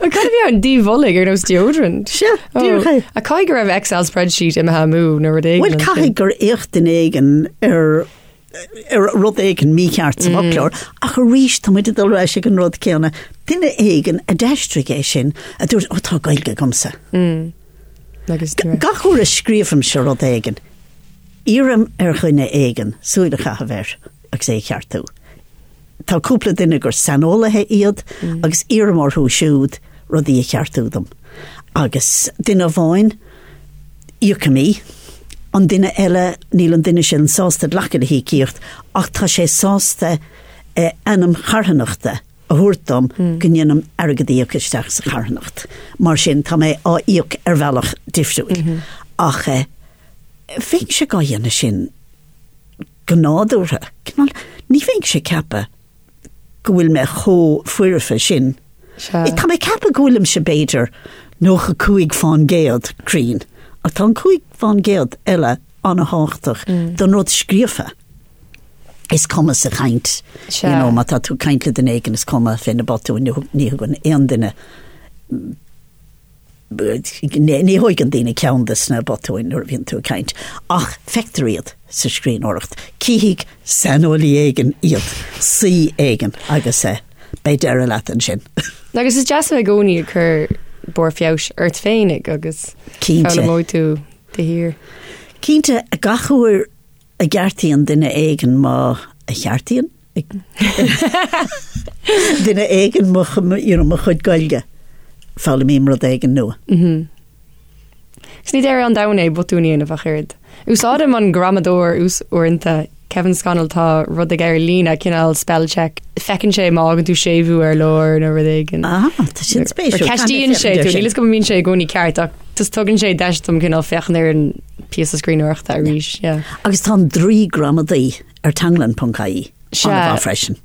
Cad a bhí ann díbholaigh ar nós deodorant? Sea, díreach é. A caithfidh go raibh Excel spreadsheet imithe amú nó rud éigin. Bhuel, caithfidh gur fhéach duine éigin ar ar rud éigin mícheart sa bhfoclóir, ach arís tá muid ag dul ar ais ag an rud céanna. Duine éigin a d'aistrigh é sin a dúirt, ó tá Gaeilge agamsa. Agus Gach uair a scríobhaimse rud éigin, iarraim ar dhuine éigin súil a chaitheamh air agus é a cheartú. Tá cúpla duine gur saineolaithe iad agus iarraim orthu siúd rudaí a cheartú dom. Agus duine amháin, íocaim í, an duine eile, níl an duine sin sásta glacadh le híocaíocht ach tá sé sásta ainm charthanachta a thabhairt dom go ndéanaim airgead a íoc isteach sa charthanacht. Mar sin, tá mé á íoc ar bhealach difriúil. Ach bheinnse dhá dhéanamh sin go nádúrtha. Cineál, ní bheinnse ag ceapadh go bhfuil mé chomh foirfe sin. Sea. Tá mé ag ceapadh go bhfuilimse b'fhéidir 95% cruinn, ach tá an 5% eile an-thábhachtach don rud scríofa. Is cuma sa chaint, Sea. you know, má tá tú ag caint le duine éigin is cuma fé na botúin, ní thug- ní thugann aon duine Ní thóigeann daoine ceann de sna botúin nuair a bhíonn tú ag caint, ach feictear iad sa scríbhneoireacht. Cífidh saineolaí éigin iad, saoi éigin, agus beidh deireadh leat ansin. Agus is deas a bheith i gcónaí ag cur barr feabhais ort féinig agus Cinnte. foghlaimeoidh tú de shíor. Cinnte, gach uair a gceartaíonn duine éigin mo, a cheartaíonn? duine éigin mo, you know, mo chuid Gaeilge, foghlaimím rud éigin nua. Mm-hmm. Agus ní deireadh an domhain é botún a dhéanamh ach oiread. Úsáidim an gramadóir uaireanta, Kevin Scannell, tá rud aige ar líne, cineál spell check. Feiceann sé má fhágann tú séimhiú ar lár nó rud éigin. Ah, tá sin spéisiúil. Ceistíonn sé tú, níl fhios agam an mbíonn sé i gcónaí ceart ach just tugann sé deis dom cineál féachaint ar an píosa scríbhneoireachta arís. Yeah. Agus tá an draoi gramadaí ar teanglann.ie Sea. an-mhaith freisin.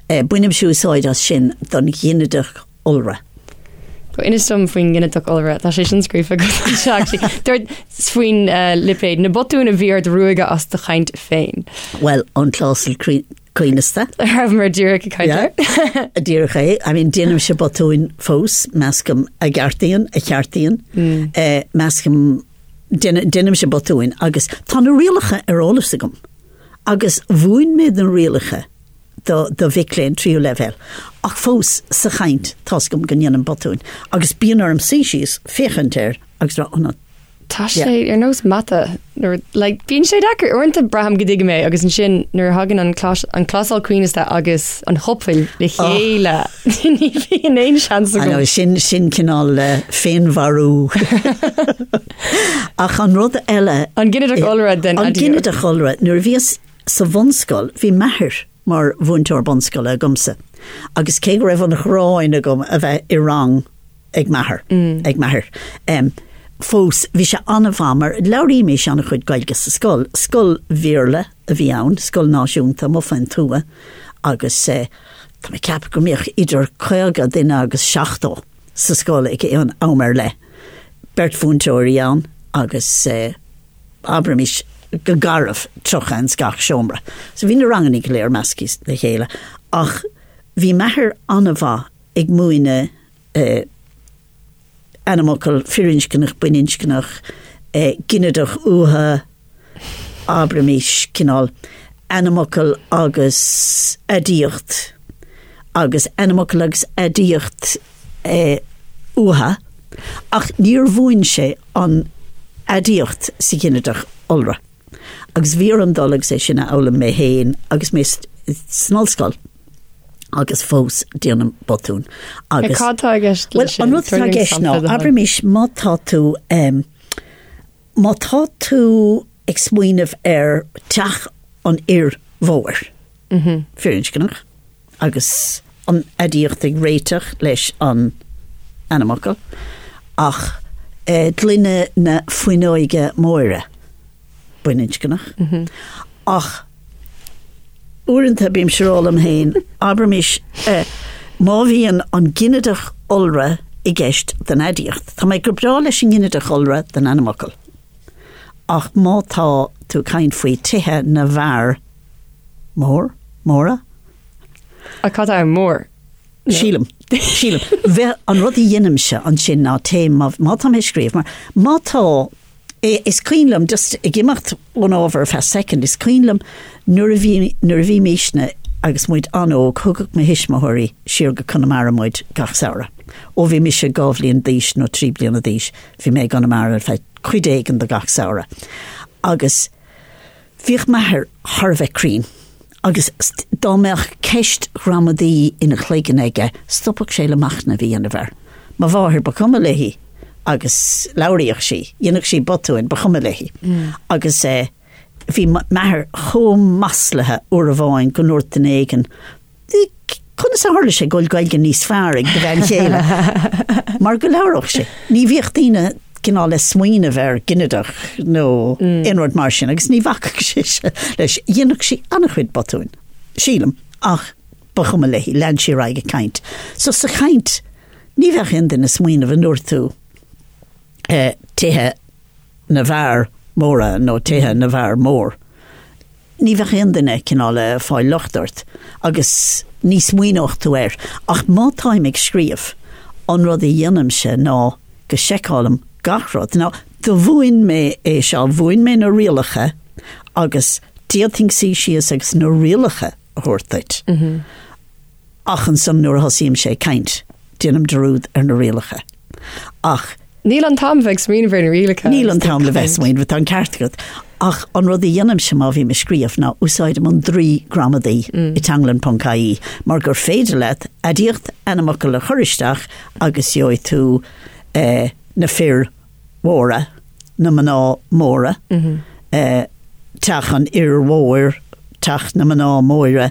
Eh, Bainimse úsáid as sin don ghinideach iolra. Go inis dom faoin nginideach iolra, tá sé sin scríofa agat anseo actually. Dúirt faoin eh, lipéad, na botúin a bhí ort ruaigeadh as do chaint féin. Bhuel, an clásal crí- coibhneasta. Rabhamar díreach ag caint Yeah. air. Díreach é. I mean, déanaimse botúin fós, meascaim a gceartaíonn, a cheartaíonn, eh, meascaim, déana- déanaimse botúin agus tá na rialacha ar eolas agam agus mhúin mé na rialacha do, do mhic léinn tríú leibhéal ach fós sa chaint tá's agam go ndéanaim botúin agus bíonn orm suí síos, féachaint air agus rá, oh no, Tá sé ar nós mata nuair like bíonn sé deacair uaireanta braithim go dtuigim é agus ansin nuair a thagann an clás an clásal coibhneasta agus an chopail le chéile ní bhíonn aon seans I know, agam. sin sin cineál eh, féinmharú. Ach an rud eile An ginideach iolra den An aidiacht. ginideach iolra, nuair a bhíos sa bhunscoil, bhí m'athair mar mhúinteoir bunscoile agamsa agus cé go raibh an ghráin agam a bheith i rang ag m'athair, ag m'athair. Fós, bhí sé an-mhaith mar labhraímis an-chuid Gaeilge sa scoil. Scoil Bhéarla a bhí ann, scoil náisiúnta amuigh faoin tuath agus tá mé ag ceapadh go mbíodh idir 50 duine agus 70 sa scoil ag aon am ar leith. Beirt mhúinteoirí ann agus abraimis go garbh 30 ins gach seomra. So bhí na ranganna go léir measctha le chéile ach bhí m'athair an-mhaith ag múineadh ainmfhocal firinscneach, baininscneach, ginideach uatha, abraimis, cineál ainmfhocal agus aidiacht agus ainmfhocal agus aidiacht uatha, ach níor mhúin sé an aidiacht sa ghinideach iolra. Agus bhí orm dul agus é sin a fhoghlaim mé féin agus mé san ollscoil agus fós déanaim botún. Agus Cad tá i gceist Well, an rud atá i gceist ná, abraimis má tá tú um, má tá tú ag smaoineamh ar teach an fhir mhóir, mm -hmm. firinscneach, agus an aidiacht ag réiteach leis an ainmfhocal, ach gloine na fuinneoige móire, baininscneach. Ach uaireanta bímse ag rá liom féin, abraimis, má bhíonn an ginideach iolra i gceist don aidiacht, tá mé go breá leis an nginideach iolra don ainmfhocal, ach má tá tú ag caint faoi tithe na bhfear, Mór? Móra? Ach cad é mór? Sílim. Sílim. Bheith, an rud a dheinimse ansin ná téim, má, má tá mé ag scríobh, mar má tá, is cuimhin liom, just ag imeacht ón ábhar ar feadh soicind, is cuimhin liom nuair a bhí, nuair a bhímisne agus muid an-óg, thugadh mo thuismitheoirí siar go Conamara muid gach samhradh. Ó bhí mise 2 bhliain d'aois nó 3 bliana d'aois, bhí mé i gConamara ar feadh cuid éigin de gach samhradh. Agus Bhíodh m'athair thar a bheith cruinn agus dá mbeadh ceist ghramadaí ina chloigeann aige, stopfadh sé le machnamh a dhéanamh air. Mo mháthair, ba chuma léi agus labhraíodh sí, dhéanfadh sí botúin, ba chuma léi. Agus bhí m'athair chomh maslaithe uair amháin go ndúirt duine éigin, Conas a tharla sé go bhfuil Gaeilge níos fearr ag do bhean chéile? Mar go labhródh sí. Ní bhíodh daoine cineál le smaoineamh ar ginideach nó aon rud mar sin agus ní bhacfadh sise leis. Dhéanfadh sí an-chuid botúin, sílim, ach. Ba chuma léi, lean sí ar aghaidh ag caint. So sa chaint, ní bheadh aon duine ag smaoineamh an ndúirt tú tithe na bhfear móra nó tithe na bhfear mór. Ní bheadh aon duine cineál ag fáil locht ort agus ní smaoineodh tú air. Ach má táim ag scríobh, an rud a dhéanaimse ná go seiceálaim gach rud. Now, do mhúin mé é seo, mhúin mé na rialacha agus d'fhéadfainn suí síos agus na rialacha a thabhairt duit. Ach ansan nuair a thosaímse ag caint, déanaim dearúd ar na rialacha. Ach. Níl an t-am bheith ag smaoineamh ar na rialacha. Níl an t-am le bheith ag smaoineamh, tá an ceart agat. Ach an rud a dhéanaimse má bhím ag scríobh ná úsáidim an draoi gramadaí i teanglann.ie mar gur féidir leat aidiacht ainmfhocal a chur isteach agus gheobhaidh tú na fir mhóra, na mná móra, teach an fhir mhóir, teach na mná móire,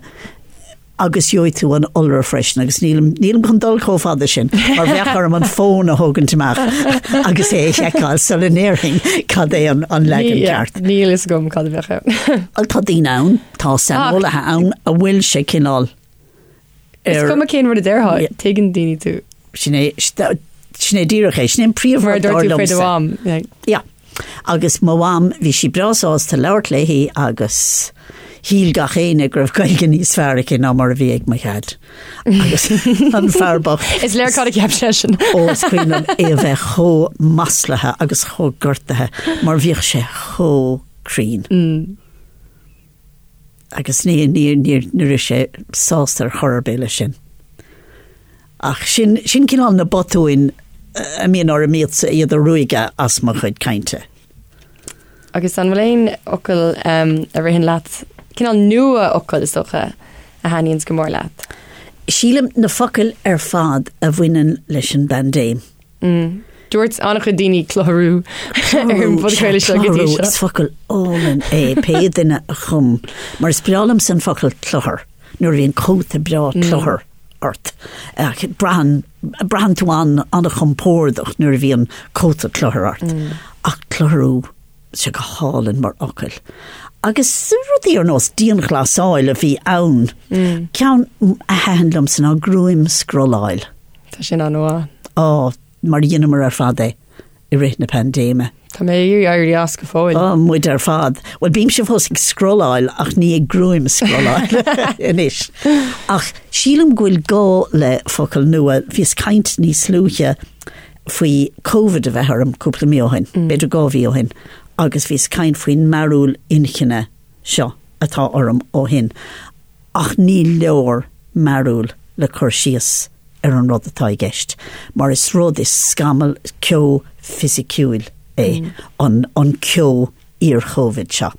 agus gheobhaidh tú an iolra freisin agus nílim, nílim chun dul chomh fada sin mar bheadh orm an fón a thógaint amach agus é a sheiceáil sula ndéarfainn cad é an, an leagan ceart. Níl fhios agam cad a bheadh ann. Tá daoine ann, tá saineolaithe ann a bhfuil sé cineál Is cuma cén rud a déarfá, tuigeann daoine tú. Sin é, sin é díreach é, sin é an príomhrud dar liomsa. Mar a dúirt tú faoi do mham. Yeah. Agus mo mham, bhí sí breá sásta labhairt léi agus shíl gach éinne go raibh Gaeilge níos fearr aici ná mar a bhí ag mo dhaid. Agus an fear bocht. Is léir cad a cheap seisean. Ó, is cuimhin liom é a bheith chomh maslaithe agus chomh gortaithe mar bhíodh sé chomh cruinn. Mm. Agus ní, ní, ní, ní raibh sé sásta ar chor ar bith leis sin. Ach sin, sin cineál na botúin a mbíonn orm iad, iad a ruaigeadh as mo chuid cainte. Agus an bhfuil aon fhocal um, a ritheann leat, cineál nua-fhocal is dócha, a thaitníonns go mór leat? Sílim na focail ar fad a bhaineann leis an bpaindéim. Mm. Dúirt an-chuid daoine clutharú ar an bpodchraoladh seo go dtí seo. Is focal álainn é pé duine a chum, mar is breá liomsa an focal cluthar, nuair a bhíonn cóta breá mm. cluthar ort. Braitheann braitheann tú an an-chompordach nuair a bhíonn cóta cluthar ort. Mm. Ach clutharú sé go hálainn mar fhocal. Agus rudaí ar nós dianghlasáil a bhí ann. Mm. Ceann a thaitin liomsa ná gruaimscrolláil. Tá sin an-mhaith. Á, mar dheineamar ar fad é i rith na paindéime. Tá mé ag iarraidh éirí as go fóill. Á, muid ar fad. Bhuel, bímse fós ag scrolláil ach ní ag gruaimscrolláil anois. Ach sílim go bhfuil gá le focal nua. Bhíos ag caint níos luaithe faoi Covid a bheith orm cúpla mí ó shin, b'fhéidir 2 mhí ó shin, agus bhíos ag caint faoin mearúil inchinne seo atá orm ó shin. Ach ní leor mearúil le cur síos ar an rud atá i gceist, mar is rud, is scamall, ceo fisiciúil é an an ceo iar-Chovid seo.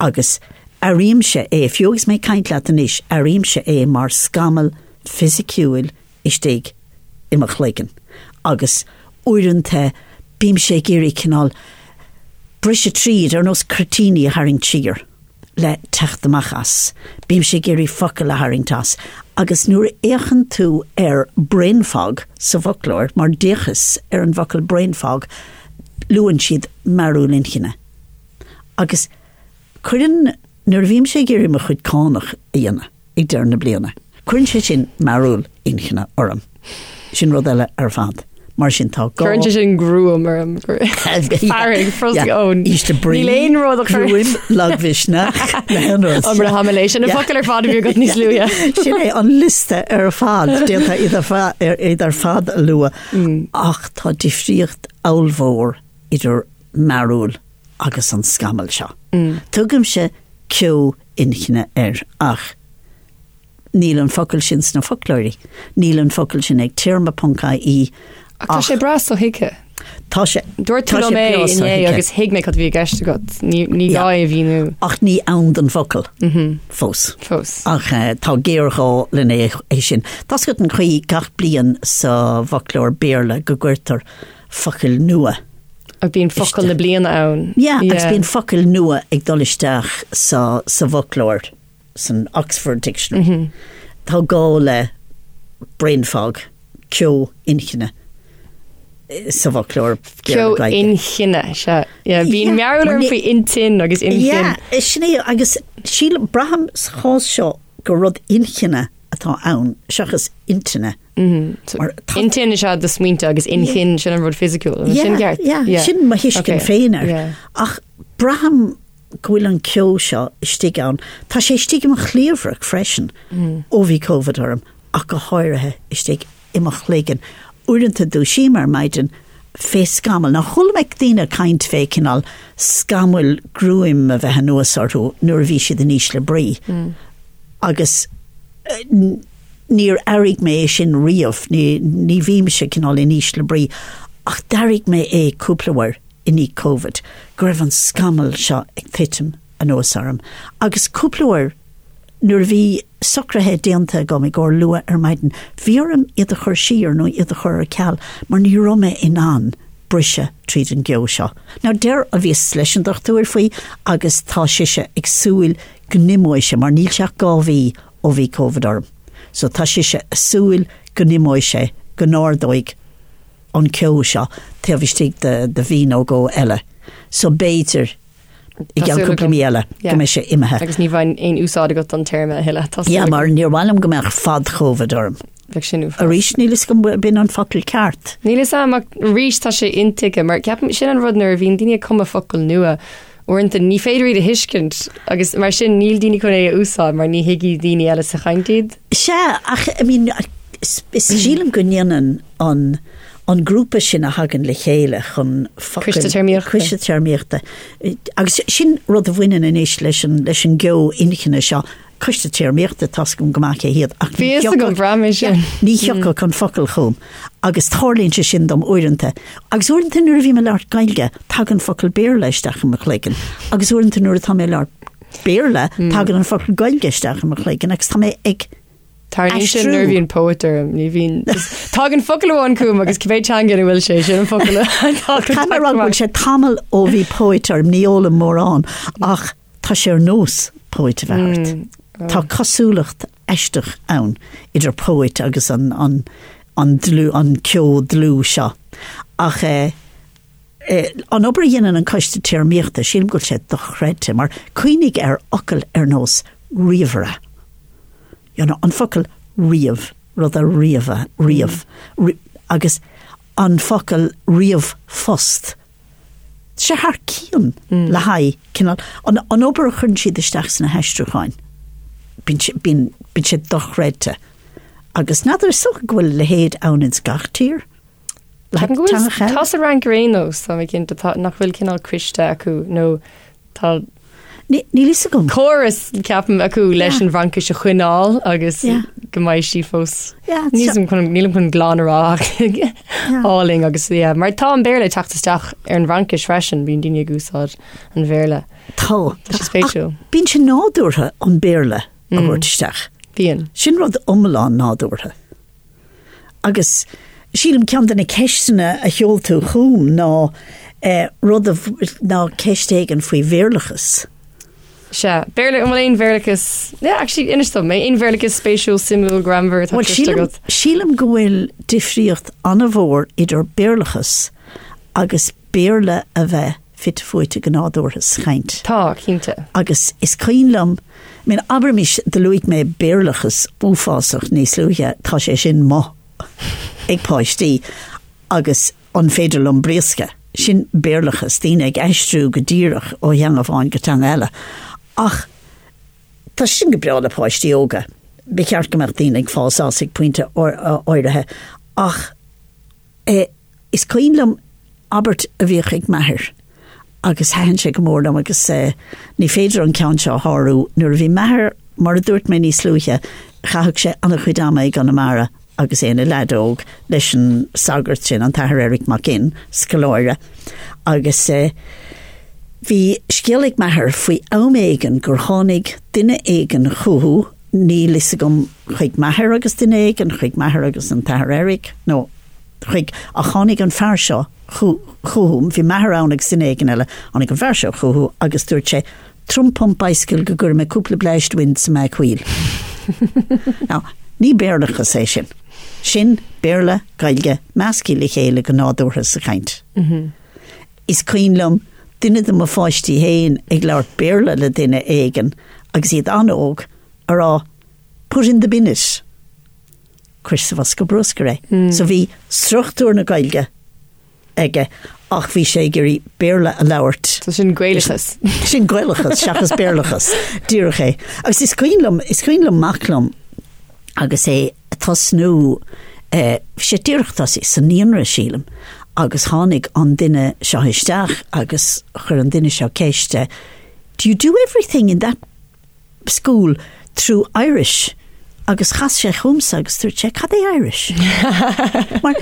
Agus airímse é, fiú agus mé ag caint leat anois, airímse é mar scamall fisiciúil istigh i mo chloigeann. Agus uaireanta bímse ag iarraidh cineál briseadh tríd, ar nós cuirtíní a tharraingt siar. le teacht amach as. Bímse ag iarraidh focail a tharraingt as. Agus nuair a fhéachann tú ar brain fog sa bhfoclóir, mar d'fhéachas ar an bhfocal brain fog, luann siad mearúil inchinne. Agus cuireann, nuair a bhímse ag iarraidh mo chuid cánach a dhéanamh, ag deireadh na bliana. Cuireann sé sin mearúil inchinne orm. Sin rud eile ar fad. Mar sin tá gá. Cuireann sé sin gruaim orm. Fearg, frosc ón. Ísle brí. Níl aon rud a chuir. Gruaim, lagmhisneach, na haon rud. An raibh mé leis sin na focail ar fad a bhí agat níos luaithe. Sin é an liosta ar fad, d'fhéadfá iad ar fad a lua. Ach tá difríocht ollmhór idir mearúil agus an scamall seo. Tugaimse ceo inchinne air ach níl an focal sin sna foclóirí, níl an focal sin ag téarma ponc ie Ach tá sé breá sothuigthe. Tá sé Dúirt tú liom é inné agus thuig mé cad a bhí i gceist agat. Ní ní gá é a mhíniú. Ach ní ann don bhfocal fós. Fós. Ach tá géarghá lena é sin. Tá 's agat an chaoi gach bliain sa bhfoclóir Béarla go gcuirtear focail nua. Ach bíonn focal na bliana ann. Yeah, agus bíonn focail nua ag dul isteach sa, sa bhfoclóir, san Oxford Dictionary. Mm -hmm. Tá gá le brain fog, ceo inchinne sa bhfoclóir. Ceo inchinne, sea. Yeah, bíonn mearúil orm faoi intinn agus inchinn. Yeah, sin é, agus sílim, braithim sa chás seo gur rud inchinne. atá ann seachas intinne. Mar tá- Intinn is ea do smaointe agus inchinn sin an rud fisiciúil. An sin ceart? Yeah, Yeah. sin mo thuiscint Okay. féin air. Yeah. Ach braithim go bhfuil an ceo seo istigh ann. Tá sé istigh i mo chliabhrach freisin ó bhí Covid orm, ach go háirithe istigh i mo chloigeann. Uaireanta dúisím ar maidin fé scamall. Now chuala mé daoine ag caint fé cineál scamaill gruaim a bheith anuas orthu nuair a bhí siad in ísle brí. Agus níor airigh mé é sin riamh, ní, ní bhímse cineál in ísle brí, ach d'airigh mé é cúpla uair i ndiaidh Covid, go raibh an scamall seo ag titim anuas orm. Agus cúpla uair nuair a bhí socruithe déanta agam i gcomhair luath ar maidin, bhí orm iad a chur siar nó iad a chur ar ceal mar ní raibh mé in ann briseadh tríd an gceo seo. Now deir, bhíos leis an dochtúir faoi agus tá sise ag súil go n-imeoidh sé mar níl sé ach 2 mhí ó bhí Covid orm. So tá sise ag súil go n-imeoidh sé, go n-ardóidh an ceo seo taobh istigh de de mhí nó dhó eile. So b'fhéidir i gceann cúpla mí eile go mbeidh sé imithe. Agus ní bheidh aon úsáid agat don téarma a thuilleadh. Tá súil Yeah, agam. mar níor mhaith liom go mbeadh fad-Chovid orm. Bheadh sin uafásach. Arís, níl fhios agam b'in an focal ceart. Níl fhios agam ach arís tá sé intuigthe mar ceapaim sin an rud nuair a bhíonn daoine ag cumadh focal nua uaireanta ní féidir iad a thuiscint agus mar sin níl daoine chun é a úsáid mar ní thuigfidh daoine eile sa chaint iad. Sea, ach I mean, is, is sílim go ndéanann an, an grúpa sin a thagann le chéile chun focail... Coiste Téarmaíochta. Coiste Téarmaíochta. Agus sin rud a bhaineann anois leis an, leis an gceo inchinne seo. Coiste Téarmaíochta, tá's agam go maith cé hiad, ach Bhí fhios agam, bhraith mé sin. Ní thiocfadh an focal chugam agus tarlaíonn sé sin dom uaireanta. Agus uaireanta nuair a bhím ag labhairt Gaeilge, tagann focal Béarla isteach i mo chloigeann. Agus uaireanta nuair atá mé ag labhairt Béarla, tagann an focal Gaeilge isteach i mo chloigeann agus tá mé ag Tarlaíonn sin aistriú. nuair a bhíonn póit orm, ní bhíonn. Tagann focal amháin chugam agus cibé teanga ina bhfuil sé, sin an focal a Caithfidh mé a rá go bhfuil sé tamall ó bhí póit orm, ní ólaim mórán, ach Tá sé ar nós póit a bheith ort. Tá cosúlacht aisteach ann idir póit agus an, an, an dlúth, an ceo dlúth seo. Ach eh, eh, an obair a dhéanann an Coiste Téarmaíochta, sílim go bhfuil sé dochreidte, mar cuimhnigh ar fhocal ar nós ríomhaire. You know, an focal ríomh, rud a ríomhadh, ríomh, agus an focal ríomhphost. sé thar cionn le haghaidh cineál, an, an obair a chuireann siad isteach sna haistriúcháin, bíonn sé, bíonn, bíonn sé dochreidte. Agus n'fheadar, is dócha go bhfuil a leithéid ann ins gach tír? Le Ceapaim go bhfuil, teangacha eile? tá sa Fhrainc ar aon nós, tá mé cinnte, tá, nach bhfuil cineál coiste acu nó tá Níl fhios agam. Córas, ceapaim, acu leis an bhFraincis a choinneáil agus Yeah. go mbeidh sí fós. Yeah, Níl chun- nílim chun glan a rá ach álainn agus yeah, mar tá an Béarla ag teacht isteach ar an bhFraincis freisin, bíonn daoine ag úsáid an Bhéarla. Tá. Tá sé spéisiúil. Ach Bíonn sé nádúrtha an Béarla a thabhairt isteach. Bíonn. Sin rud iomlán nádúrtha. Agus sílim ceann de na ceisteanna a sheol tú chugam ná rud a, ná ceist éigin faoi Bhéarlachas. Sea. Béarla, an bhfuil aon Bhéarlachas, yeah, actually, inis dom, aon Bhéarlachas spéisiúil, suimiúil, greannmhar atá Bhuel, cloiste sílim, agat? sílim go bhfuil difríocht an-mhór idir Béarlachas agus Béarla a bheith fite fuaite go nádúrtha sa chaint. Tá, cinnte. Agus is cuimhin liom, I mean, abraimis, do luaigh mé Béarlachas uafásach níos luaithe, tá sé sin amuigh ag páistí agus an féidir liom briosca? Sin Béarlachas, daoine ag aistriú go díreach ó theanga amháin go teanga eile. Ach tá sin go breá le páistí óga. Ba cheart go mbeadh daoine ag fás as ag pointe áirithe. Ach eh, Is cuimhin liom abairt a bhíodh ag m'athair agus thaitin sé go mór liom agus ní féidir an ceann seo a shárú. Nuair a bhí m'athair, mar a dúirt mé níos luaithe, chaitheadh sé an-chuid ama i gConamara agus é ina leaid óg leis an sagart sin, an tAthair Eric Mac Fhinn, scoláire, agus bhí scéal ag m'athair faoi am éigin gur tháinig duine éigin chucu, níl fhios agam chuig m'athair agus duine éigin, chuig m'athair agus an tAthair Eric nó. chuig, ach tháinig an fear seo chucu, bhí m'athair ann agus duine éigin eile, tháinig an fear seo chucu agus dúirt sé, Trump pump bicycle go gcuirfidh mé cúpla bleaist wind sa mag wheel. Now, ní Béarlachas é sin. Sin Béarla, Gaeilge, measctha le chéile go nádúrtha sa chaint. Is cuimhin liom duine de mo pháistí féin ag labhairt Béarla le duine éigin agus iad an-óg, a rá. Put in the bin it. Cuir sa bhosca bruscair é. So bhí struchtúr na Gaeilge aige ach bhí sé ag iarraidh Béarla a labhairt. So sin Gaelachas. Sin Gaelachas seachas Béarlachas. Díreach é. Agus is cuimhin liom, is cuimhin liom mac liom agus é ag tosnú, eh, bhí sé díreach tosaithe sa naíonra sílim, agus tháinig an duine seo isteach agus chuir an duine seo ceist, eh, Do you do everything in that school through Irish agus chas sé chugamsa agus dúirt sé cad é Irish? Mar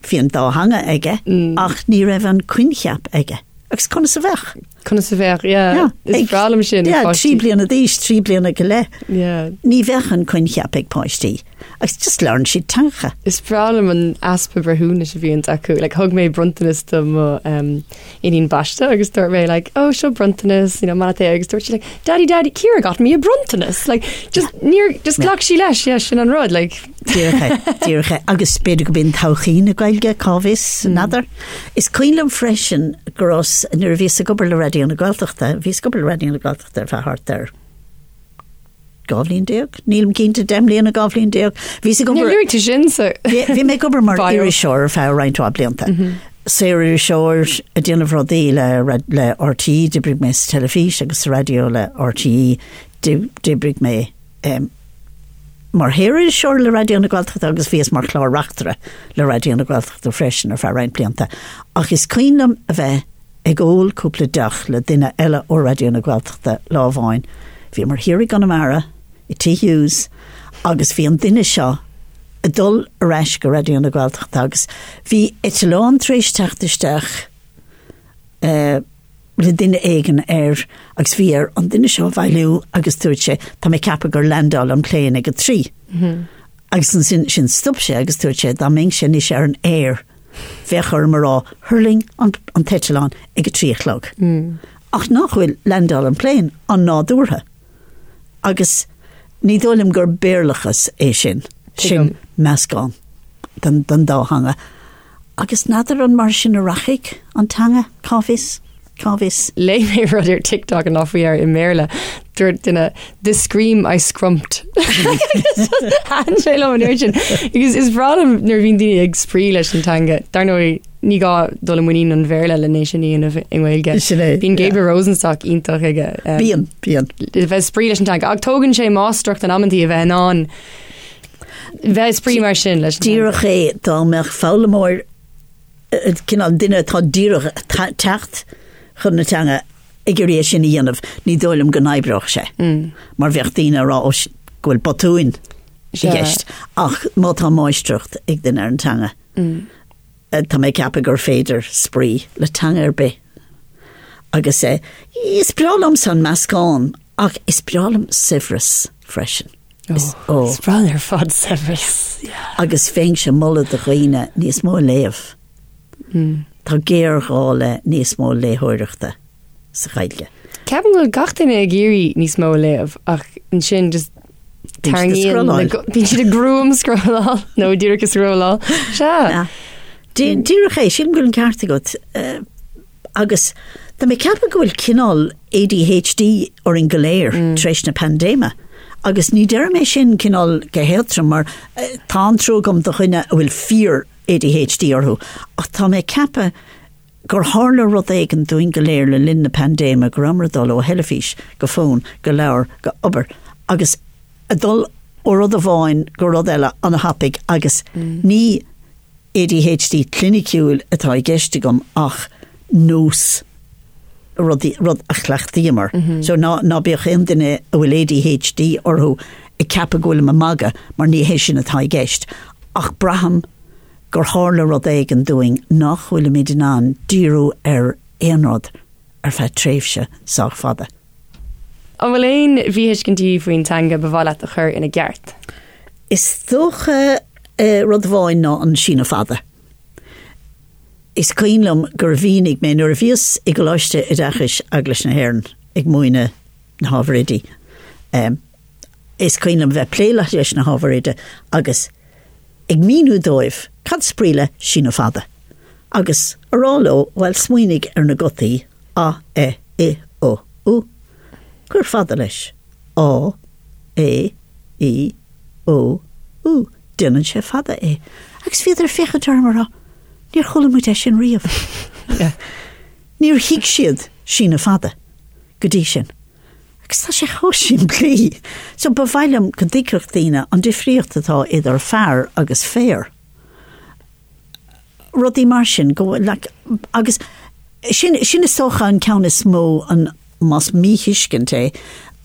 bhí an dá theanga aige ach ní raibh an coincheap aige. Agus conas a bheadh? Conas a bheadh, yeah. Is breá liom sin. Yeah, 3 bliana d'aois, 3 bliana go leith. Yeah. Ní bheadh an coincheap ag páistí. Agus just labhrann siad teangacha. Is breá liom an easpa breithiúnais a bhíonns acu. Like, thug mé bronntanas do mo um, iníon baiste agus dúirt mé like, oh seo bronntanas, you know, maith leat é agus dúirt sí like, daddy daddy Ciara got me a bronntanas like just níor just ghlac sí leis yeah, sin an rud like Díreach é, díreach é. Agus b'fhéidir go b'in todhchaí na Gaeilge cá bhfios n'fheadar. Is cuimhin liom freisin go raibh nuair a bhíos ag obair le Raidió na Gaeltachta, bhíos ag obair le Raidió na Gaeltachta ar feadh thart ar 12 bhliain, nílim cinnte, 10 mbliana, 12 bhliain. Bhíos ag obair... Níor luaigh tú sin sa Bhí mé ag obair mar iriseoir ar feadh roinnt mhaith blianta. Saoririseoir ag déanamh rudaí le le RTÉ, d'oibrigh mé sa teilifís agus sa raidió le RTÉ, d'oibrigh mé mar shaoririseoir le Raidió na Gaeltachta agus bhíos mar chlár-reachtaire le Raidió na Gaeltachta freisin ar feadh roinnt blianta. Ach is cuimhin liom a bheith ag ól cúpla deoch le duine eile ó Raidió na Gaeltachta lá amháin. Bhíomar thiar i gConamara, i Tigh Hughes, agus bhí an duine seo ag dul ar ais go Raidió na Gaeltachta agus bhí eitleán tar éis teacht isteach le duine éigin air agus bhí air an duine seo a bhailiú agus dúirt sé, tá mé ag ceapadh gur landáil an plane ag a trí. Agus ansin sin stop sé agus dúirt sé dá mbeinnse anois ar an aer bheadh orm a rá thuirling an an t-eitleán ag a 3 a chlog. Ach nach bhfuil landáil an plane an-nádúrtha. Agus ní dóigh liom gur Béarlachas é sin. Sin meascán den den dá theanga. Agus n'fheadar an mar sin a rachaidh an teanga, cá bhfios? Cá bhfios? Léigh mé rud ar TikTok an lá faoi dheireadh i mBéarla. Dúirt duine, The scream I scrumped. Thaitin sé liom an uair sin. Agus is breá liom nuair a bhíonn daoine ag spraoi leis an teanga. Dar ndóigh, ní gá dul i muinín an Bhéarla le é sin a dhéanamh i nGaeilge. Sin é, Bíonn Gabriel Rosenstock iontach aige. Um, Bíonn, bíonn. A bheith ag spraoi leis an teanga. Ach tógann sé máistreacht in amantaí a bheith in ann bheith ag spraoi mar sin leis an teanga. Díreach é dá mbeadh foghlaimeoir cineál duine atá díreach ag teacht chun na teanga ag iarraidh é sin a dhéanamh, ní dóigh liom go n-oibreodh sé. Mar bheadh daoine ag rá ó go bhfuil botúin i gceist. Ach má tá máistreacht ag duine ar an teanga, tá mé ag ceapadh gur féidir spraoi le teanga ar bith. Agus is breá liomsa an meascán ach is breá liom saibhreas freisin. Is oh, is breá ar fad saibhreas. Yeah. Agus bheinnse ag moladh do dhaoine níos mó a léamh. Mm. Tá géarghá le níos mó léitheoireachta sa Ghaeilge. Ceapaim go bhfuil gach duine ag iarraidh níos mó a léamh ach ansin just tarraingíonn bíonn siad ag gruaim-scrolláil nó díreach ag scrolláil. Sea. Díreach é, sílim go bhfuil an ceart agat. Eh, Agus tá mé ag ceapadh go bhfuil cineál ADHD orainn go léir tar éis na paindéime. Agus ní deirim é sin cineál go héadtrom mar tá an-trua agam do dhuine a bhfuil fíor ADHD orthu ach tá mé ag ceapadh gur tharla rud éigin dúinn go léir le linn na paindéime, go rabhamar ag dul ó theilifís go fón go leabhar go obair agus ag dul ó rud amháin go rud eile an-thapaidh agus ní ADHD cliniciúil atá i gceist agam ach nós, rudaí, rud a chleachtaíomar. So ná, ná bíodh aon duine a bhfuil ADHD orthu ag ceapadh go bhfuilim ag magadh mar ní hé sin atá i gceist. Ach braithim gur tharla rud éigin dúinn nach bhfuilimid in ann díriú ar aon rud ar feadh tréimhse sách fada. An bhfuil aon mhíthuiscintí faoin teanga ba mhaith leat a chur ina gceart? Is dócha rud amháin ná an síneadh fada. Is cuimhin liom gur mhínigh mé nuair a bhíos i gColáiste Oideachais Eaglais na hÉireann ag múineadh na hábhair oidí, is cuimhin liom bheith ag plé leis na hábhair oide agus ag míniú dóibh cad is brí le síneadh fada agus a rá leo, bhuel, smaoinigh ar na gutaí a, e, i, o, u, cuir fada leis, á, é. I, O, U. Déanann sé fada é. Agus bhíodar ag féachaint orm ag rá, Níor chuala muid é sin riamh. Níor thuig siad síneadh fada go dtí sin. Agus tá sé chomh simplí. So ba mhaith liom go dtuigfeadh daoine an difríocht atá idir fear agus féar. Rudaí mar sin, go bhfuil, like, agus sin, sin is dócha an ceann is mó, an, más míthuiscint é,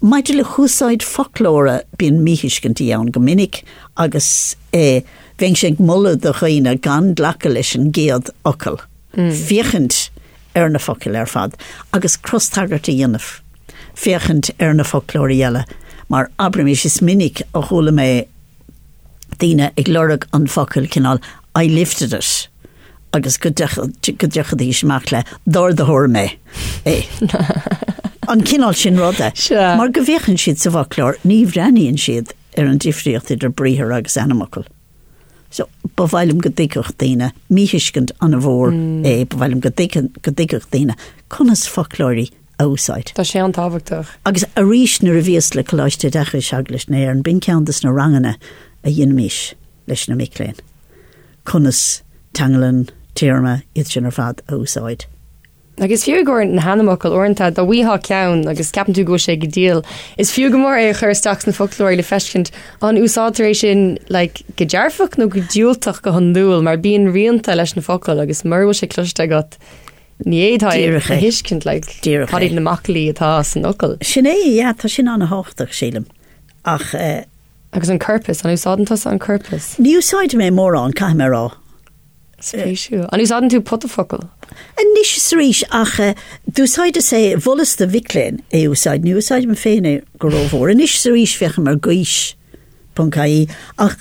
maidir le húsáid foclóra, bíonn míthuiscintí ann go minic agus eh, bheinnse ag moladh do dhaoine gan glacadh leis an gcéad fhocal, féachaint ar na focail ar fad agus crostagairt a dhéanamh, féachaint ar na foclóirí eile, mar abraimis, is minic a chuala mé daoine ag lorg an focal cineál I lifted it agus go dtiocfaidís amach le d'ardaigh mé é. An cineál sin ruda. Mar go bhféachann siad sa bhfoclóir, ní bhreathnaíonn siad ar an difríocht idir briathar agus ainmfhocal. So, ba mhaith liom go dtuigfeadh daoine, míthuiscint an-mhór é, ba mhaith liom go dtuigfeadh daoine conas foclóirí a úsáid. Tá sé an-tábhachtach. Agus arís nuair a bhíos le Coláiste Oideachais Eaglais na hÉireann, b'in ceann de na ranganna a dheinimís leis na mic léinn, conas teanglann, téarma, iad sin ar fad a úsáid. Agus fiú i gcomhair na hainmfhocail, uaireanta dá bhfaightheá ceann agus ceapann tú go bhfuil sé go diail, is fiú go mór é a chur isteach sna foclóirí le feiscint an úsáidtear é sin like, go dearfach nó go diúltach go hiondúil, mar bíonn rianta leis na focail agus mura bhfuil sé cloiste agat, Ní fhéadfá é a thuiscint, like, cad iad na macallaí atá san fhocal. Sin é, yeah, tá sin an-thábhachtach, sílim. Ach. Eh, Agus an corpas, an úsáideann tusa an corpas? Ní úsáidim é mórán, caithfidh mé a rá. Spéisiúil. An úsáideann tú pota focal? Anois is arís, ach eh, d'úsáideas é, mholas do mhic léinn é a úsáid, ní úsáidim féin é go rómhór. Anois is arís féachaim ar gaois ponc ie, ach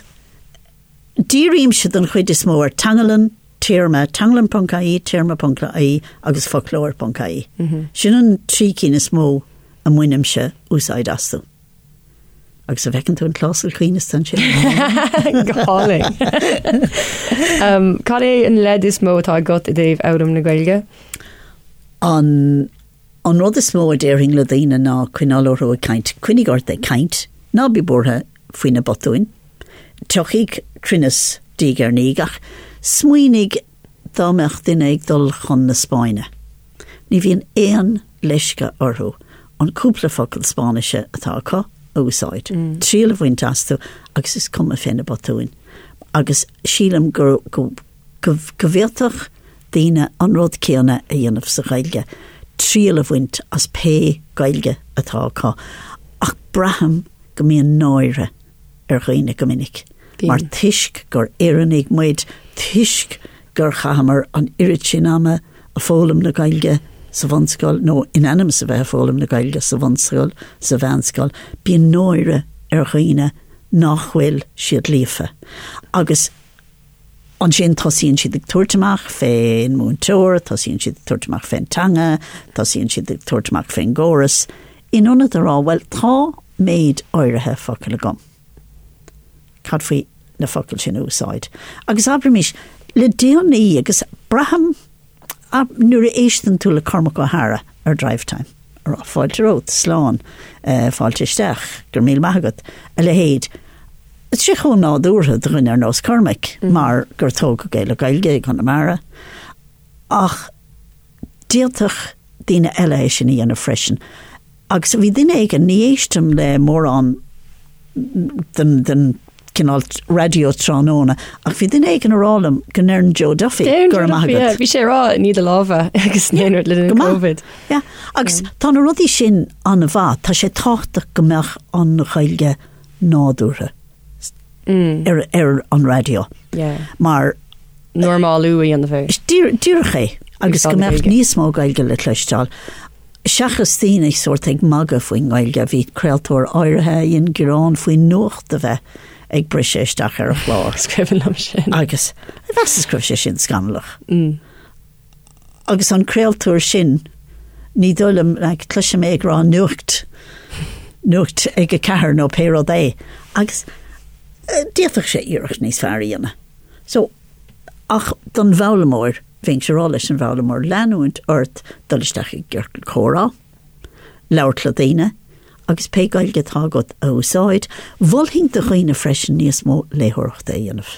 Dírímse den chuid is mó ar teanglann, téarma, teanglann ponc ie, téarma ponc ie agus foclóir ponc ie. Sin an trí cinn is mó a mbainimse úsáid astu. Agus an bhfeiceann tú an clásal coibhneasta ansin? Go hálainn. Cad é an leid is mó atá agat i dtaobh fhoghlaim na Gaeilge? An An rud is mó a déarfainn le daoine ná coinneáil orthu ag caint. Coinnigh ort ag caint, ná bí buartha faoi na botúin. Tiocfaidh cruinneas diaidh ar ndiaidh ach smaoinigh dá mbeadh duine ag dul chun na Spáinne. Ní bhíonn aon leisce orthu an cúpla focal Spáinnise atá acu a úsáid, triail a bhaint astu agus is cuma fé na botúin. Agus sílim go go go bhféadfadh daoine an rud céanna a dhéanamh sa Ghaeilge, triail a bhaint as pé Gaeilge atá acu. Ach braithim go mbíonn náire ar dhaoine go minic, mar toisc gur Éireannaigh muid, toisc gur chaitheamar an oiread sin ama ag foghlaim na Gaeilge sa bhunscoil, nó in ainm is a bheith ag foghlaim na Gaeilge sa bhunscoil, sa mheánscoil, bíonn náire ar dhaoine nach bhfuil siad líofa. Agus. Ansin tosaíonn siad ag tabhairt amach fén múinteoir, tosaíonn siad ag tabhairt amach fén teanga, tosaíonn siad ag tabhairt amach fén gcóras, in ionad a rá, bhuel, tá méid áirithe focal agam. Cad faoi na focail sin a úsáid? Agus abraimis, le déanaí, agus braithim, Nuair a éisteann tú le Cormac Ó hEadhra ar Drivetime, ag rá fáilte romhat, slán, fáilte isteach, go raibh míle maith agat, a leithéid, tá sé chomh nádúrtha do dhuine ar nós Cormaic mar gur tógadh é le Gaeilge i gConamara, ach d'fhéadfadh daoine eile é sin a dhéanamh freisin. Agus bhí duine éigin, ní éistim le mórán den, den cineál raidió tráthnóna, ach bhí duine éigin ag rá liom go ndeireann Joe Duffy go raibh maith agat. Bhí sé ag rá nigh do lámha agus an rud le linn Covid. Yeah. Agus tá na rudaí sin an-mhaith, tá sé tábhachtach go mbeadh an Ghaeilge nádúrtha. ar, ar an raidió. Yeah. Mar Normalú a dhéanamh air. Díreach é, agus go mbeadh níos mó Gaeilge le cloisteáil. Seachas daoine sórt ag magadh faoin nGaeilge, bhí craoltóir áirithe a dhein gearán faoin nuacht a bheith ag briseadh isteach ar a chlár. Is cuimhin liom sin. Agus mheasas go raibh sé sin scannalach. Mm. Agus an craoltóir sin, ní dóigh liom, like, cloisim é ag rá nuacht, nuacht ag a ceathair nó pé rud é, agus eh, d'fhéadfadh sé iarracht níos fearr a dhéanamh. So, ach don bhfoghlaimeoir, bheinnse ag rá leis an bhfoghlaimeoir leanúint ort dul isteach i gciorcal comhrá, labhairt le daoine, agus pé Gaeilge atá agat a úsáid. Mholfainn do dhaoine freisin níos mó léitheoireachta a dhéanamh.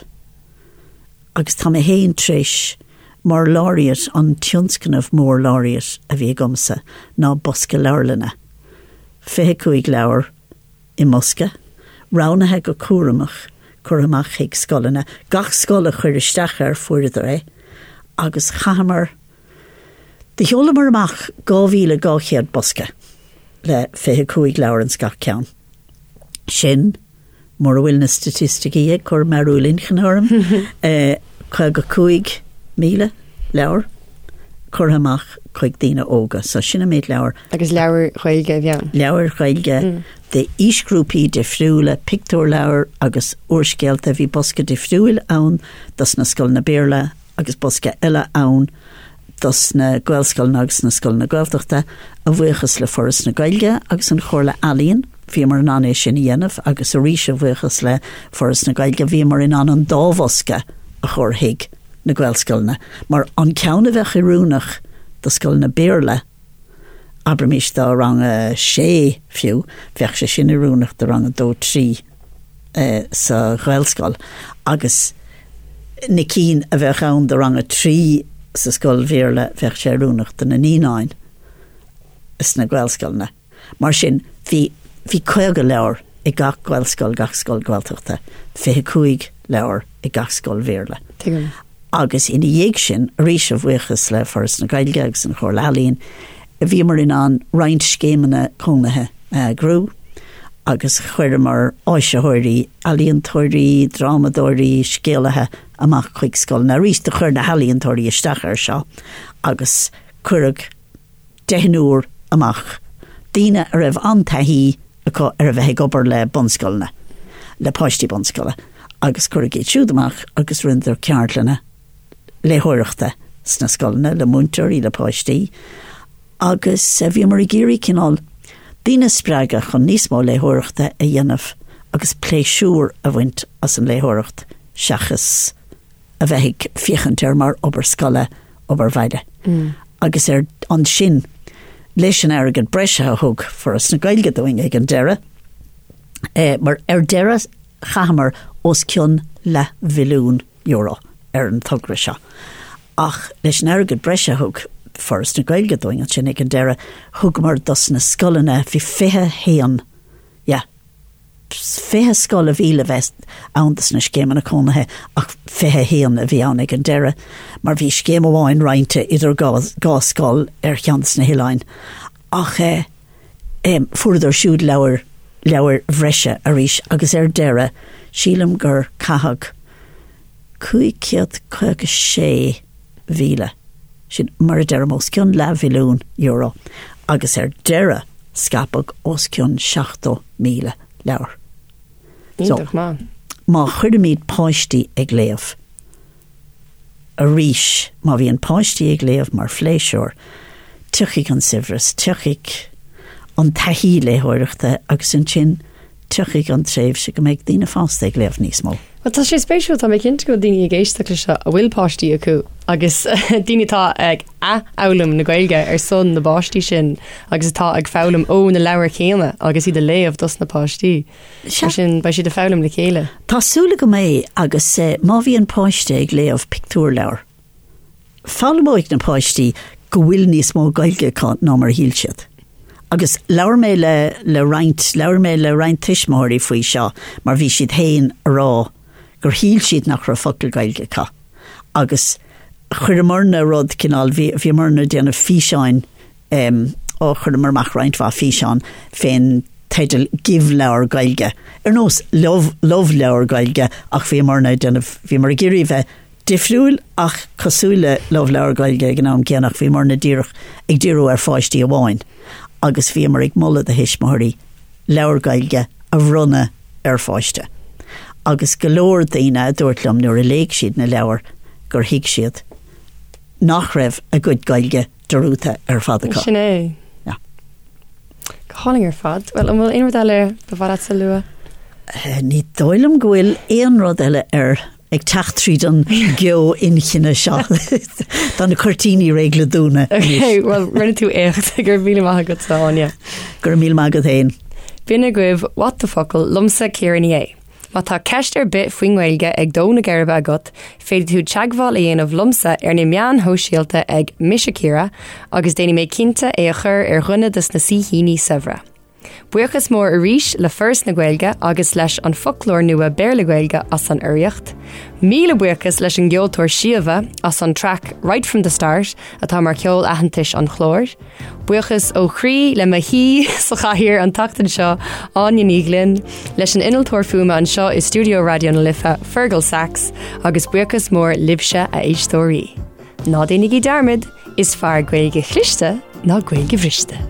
Agus tá mé féin tar éis, mar Laureate, an tionscnamh mór Laureate a bhí agamsa ná bosca leabharlainne, 25 leabhar i mbosca, roghnaithe go cúramach, curtha amach chuig scoileanna. Gach scoil a chuir isteach air, fuaireadar é. Agus chaitheamar, do sheolamar amach 2,200 bosca le 25 leabhar ins gach ceann. Sin. Mura bhfuil na staitisticí ag cur mearúil inchinne orm, 55,000 leabhar curtha amach chuig daoine óga. So sin an méid leabhar. Agus leabhair Ghaeilge a bhí ann? Leabhair Ghaeilge d'aoisghrúpaí difriúla, pictiúrleabhair agus úrscéalta. Bhí bosca difriúil ann dos na scoileanna Béarla agus bosca eile ann dos na Gaelscoileanna agus na scoileanna Gaeltachta, a bhuíochas le Foras na Gaeilge agus an Chomhairle Ealaíon, bhíomar in ann é sin a dhéanamh agus arís a bhuíochas le Foras na Gaeilge bhíomar in ann an dá bhosca a chur chuig na Gaelscoileanna, mar an ceann a bheadh oiriúnach do scoileanna Béarla, abraimis do rang a sé fiú, bheadh sé sin oiriúnach do rang a dó, trí sa Ghaelscoil agus na cinn a bheadh ann do rang a 3 sa scoil Bhéarla, bheadh sé oiriúnach do na naíonáin sna Gaelscoileanna. Mar sin, bhí, bhí 50 leabhar ag gach Gaelscoil, gach scoil Gaeltachta, 25 leabhar ag gach scoil Bhéarla. Tuigim. Agus ina dhiaidh sin, arís a bhuíochas le Foras na Gaeilge agus an Chomhairle Ealaíon, bhíomar in ann roinnt scéimeanna cónaithe a eagrú agus chuireamar áisitheoirí, ealaíontóirí, drámadóirí, scéalaithe amach chuig scoileanna. Arís, do chuir na healaíontóirí isteach air seo agus cuireadh deichniúr amach, daoine a raibh an-taithí acu ar a bheith ag obair le bunscoileanna, le páistí bunscoile, agus cuireadh iad siúd amach agus rinneadar ceardlanna léitheoireachta sna scoileanna le múinteoirí, le páistí, agus bhíomar ag iarraidh cineál daoine a spreagadh chun níos mó léitheoireachta a dhéanamh agus pléisiúr a bhaint as an léitheoireacht seachas a bheith ag féachaint air mar obair scoile, obair bhaile. Agus ar ansin, leis an airgead breise a thug Foras na Gaeilge dúinn ag an deireadh, mar ar deireadh chaitheamar os cionn leathmhilliún euro ar an togra seo. Ach leis an airgead breise a thug Foras na Gaeilge dúinn ansin ag an deireadh, thugamar dos na scoileanna, bhí 21, yeah, 20 scoil a bhí le bheith ann dos na scéimeanna cónaithe ach 21 a bhí ann ag an deireadh mar bhí scéim amháin roinnte idir dhá scoil ar cheann des na hoileáin ach eh, fuaireadar siúd leabhair, leabhair bhreise arís agus ar deireadh sílim gur caitheadh 556,000, sin mar a deirim os cionn leathmhilliún euro agus ar deireadh scaipeadh os cionn 70,000 leabhar. So, Iontach maith. má chuirimid páistí ag léamh, arís, má bhíonn páistí ag léamh mar phléisiúr, tiocfaidh an saibhreas, tiocfaidh an taithí léitheoireachta agus ansin tiocfaidh an tréimhse go mbeidh daoine fásta ag léamh níos mó. Bhuel, tá sé spéisiúil, tá mé cinnte go bhfuil daoine ag éisteacht leis seo a bhfuil páistí acu agus daoine atá ag athfhoghlaim na Gaeilge ar son na bpáistí sin agus atá ag foghlaim ó na leabhair chéanna agus iad a léamh dos na páistí. Mar sin, beidh siad ag foghlaim le chéile. Tá súil agam é agus má bhíonn páiste ag léamh pictiúrleabhar, foghlaimeoidh na páistí go bhfuil níos mó Gaeilge acu ná mar a shíl siad. Agus labhair mé le le roinnt, labhair mé le roinnt tuismitheoirí faoi seo mar bhí siad féin a rá gur shíl siad nach raibh focal Gaeilge acu. Agus chuireamarna rud cineál, bhí, bhíomarna ag déanamh físeáin, em, ó chuireamar amach roinnt mhaith físeán fén teideal Give Leabhar Gaeilge, ar nós Love, Love Leabhar Gaeilge ach bhíomarna ag déanamh, bhíomar ag iarraidh bheith difriúil ach cosúil le Love Leabhar Gaeilge ag an am céanna ach bhíomarna díreach ag díriú ar pháistí amháin agus bhíomar ag moladh do thuismitheoirí leabhar Gaeilge a bhronnadh ar pháiste. Agus go leor daoine a dúirt liom nuair a léigh siad na leabhair gur thuig siad nach raibh a gcuid Gaeilge dearúdta ar fad acu. Sin é. Yeah. Go hálainn ar fad. Bhuel, an bhfuil aon rud eile ba mhaith leat a lua? Ní dóigh liom go bhfuil aon rud eile ar ag teacht tríd an gceo inchinne seo. Tá na cuirtíní réidh le dúnadh. Ok, well, rinne tú éacht. Go raibh míle maith agat, Áine. Go raibh míle maith agat féin. B'in agaibh What the Focal liomsa Ciara Ní É. Má tá ceist ar bith faoin nGaeilge ag dó na geirbe agat, féadfaidh tú teagmháil a dhéanamh liomsa ar na meáin shóisialta ag Mise Ciara agus déanfaidh mé cinnte é a chur ar dhuine de na saoithíní saibhre. Buíochas mór arís le Foras na Gaeilge agus leis an Foclóir Nua Béarla-Gaeilge as an urraíocht. Míle buíochas leis an gceoltóir Síomha as an traic Right From The Start atá mar cheol aitheantais an chláir. Buíochas ó chroí le mo shaoi sa chathaoir an tseachtain seo, Áine Ní Ghlinn, leis an innealtóir fuaime anseo i stiúideo Raidió na Life, Fergal Sachs, agus buíochas mór libhse, a éisteoirí. Ná déanaigí dearmad, is fearr Gaeilge chliste ná Gaeilge bhriste.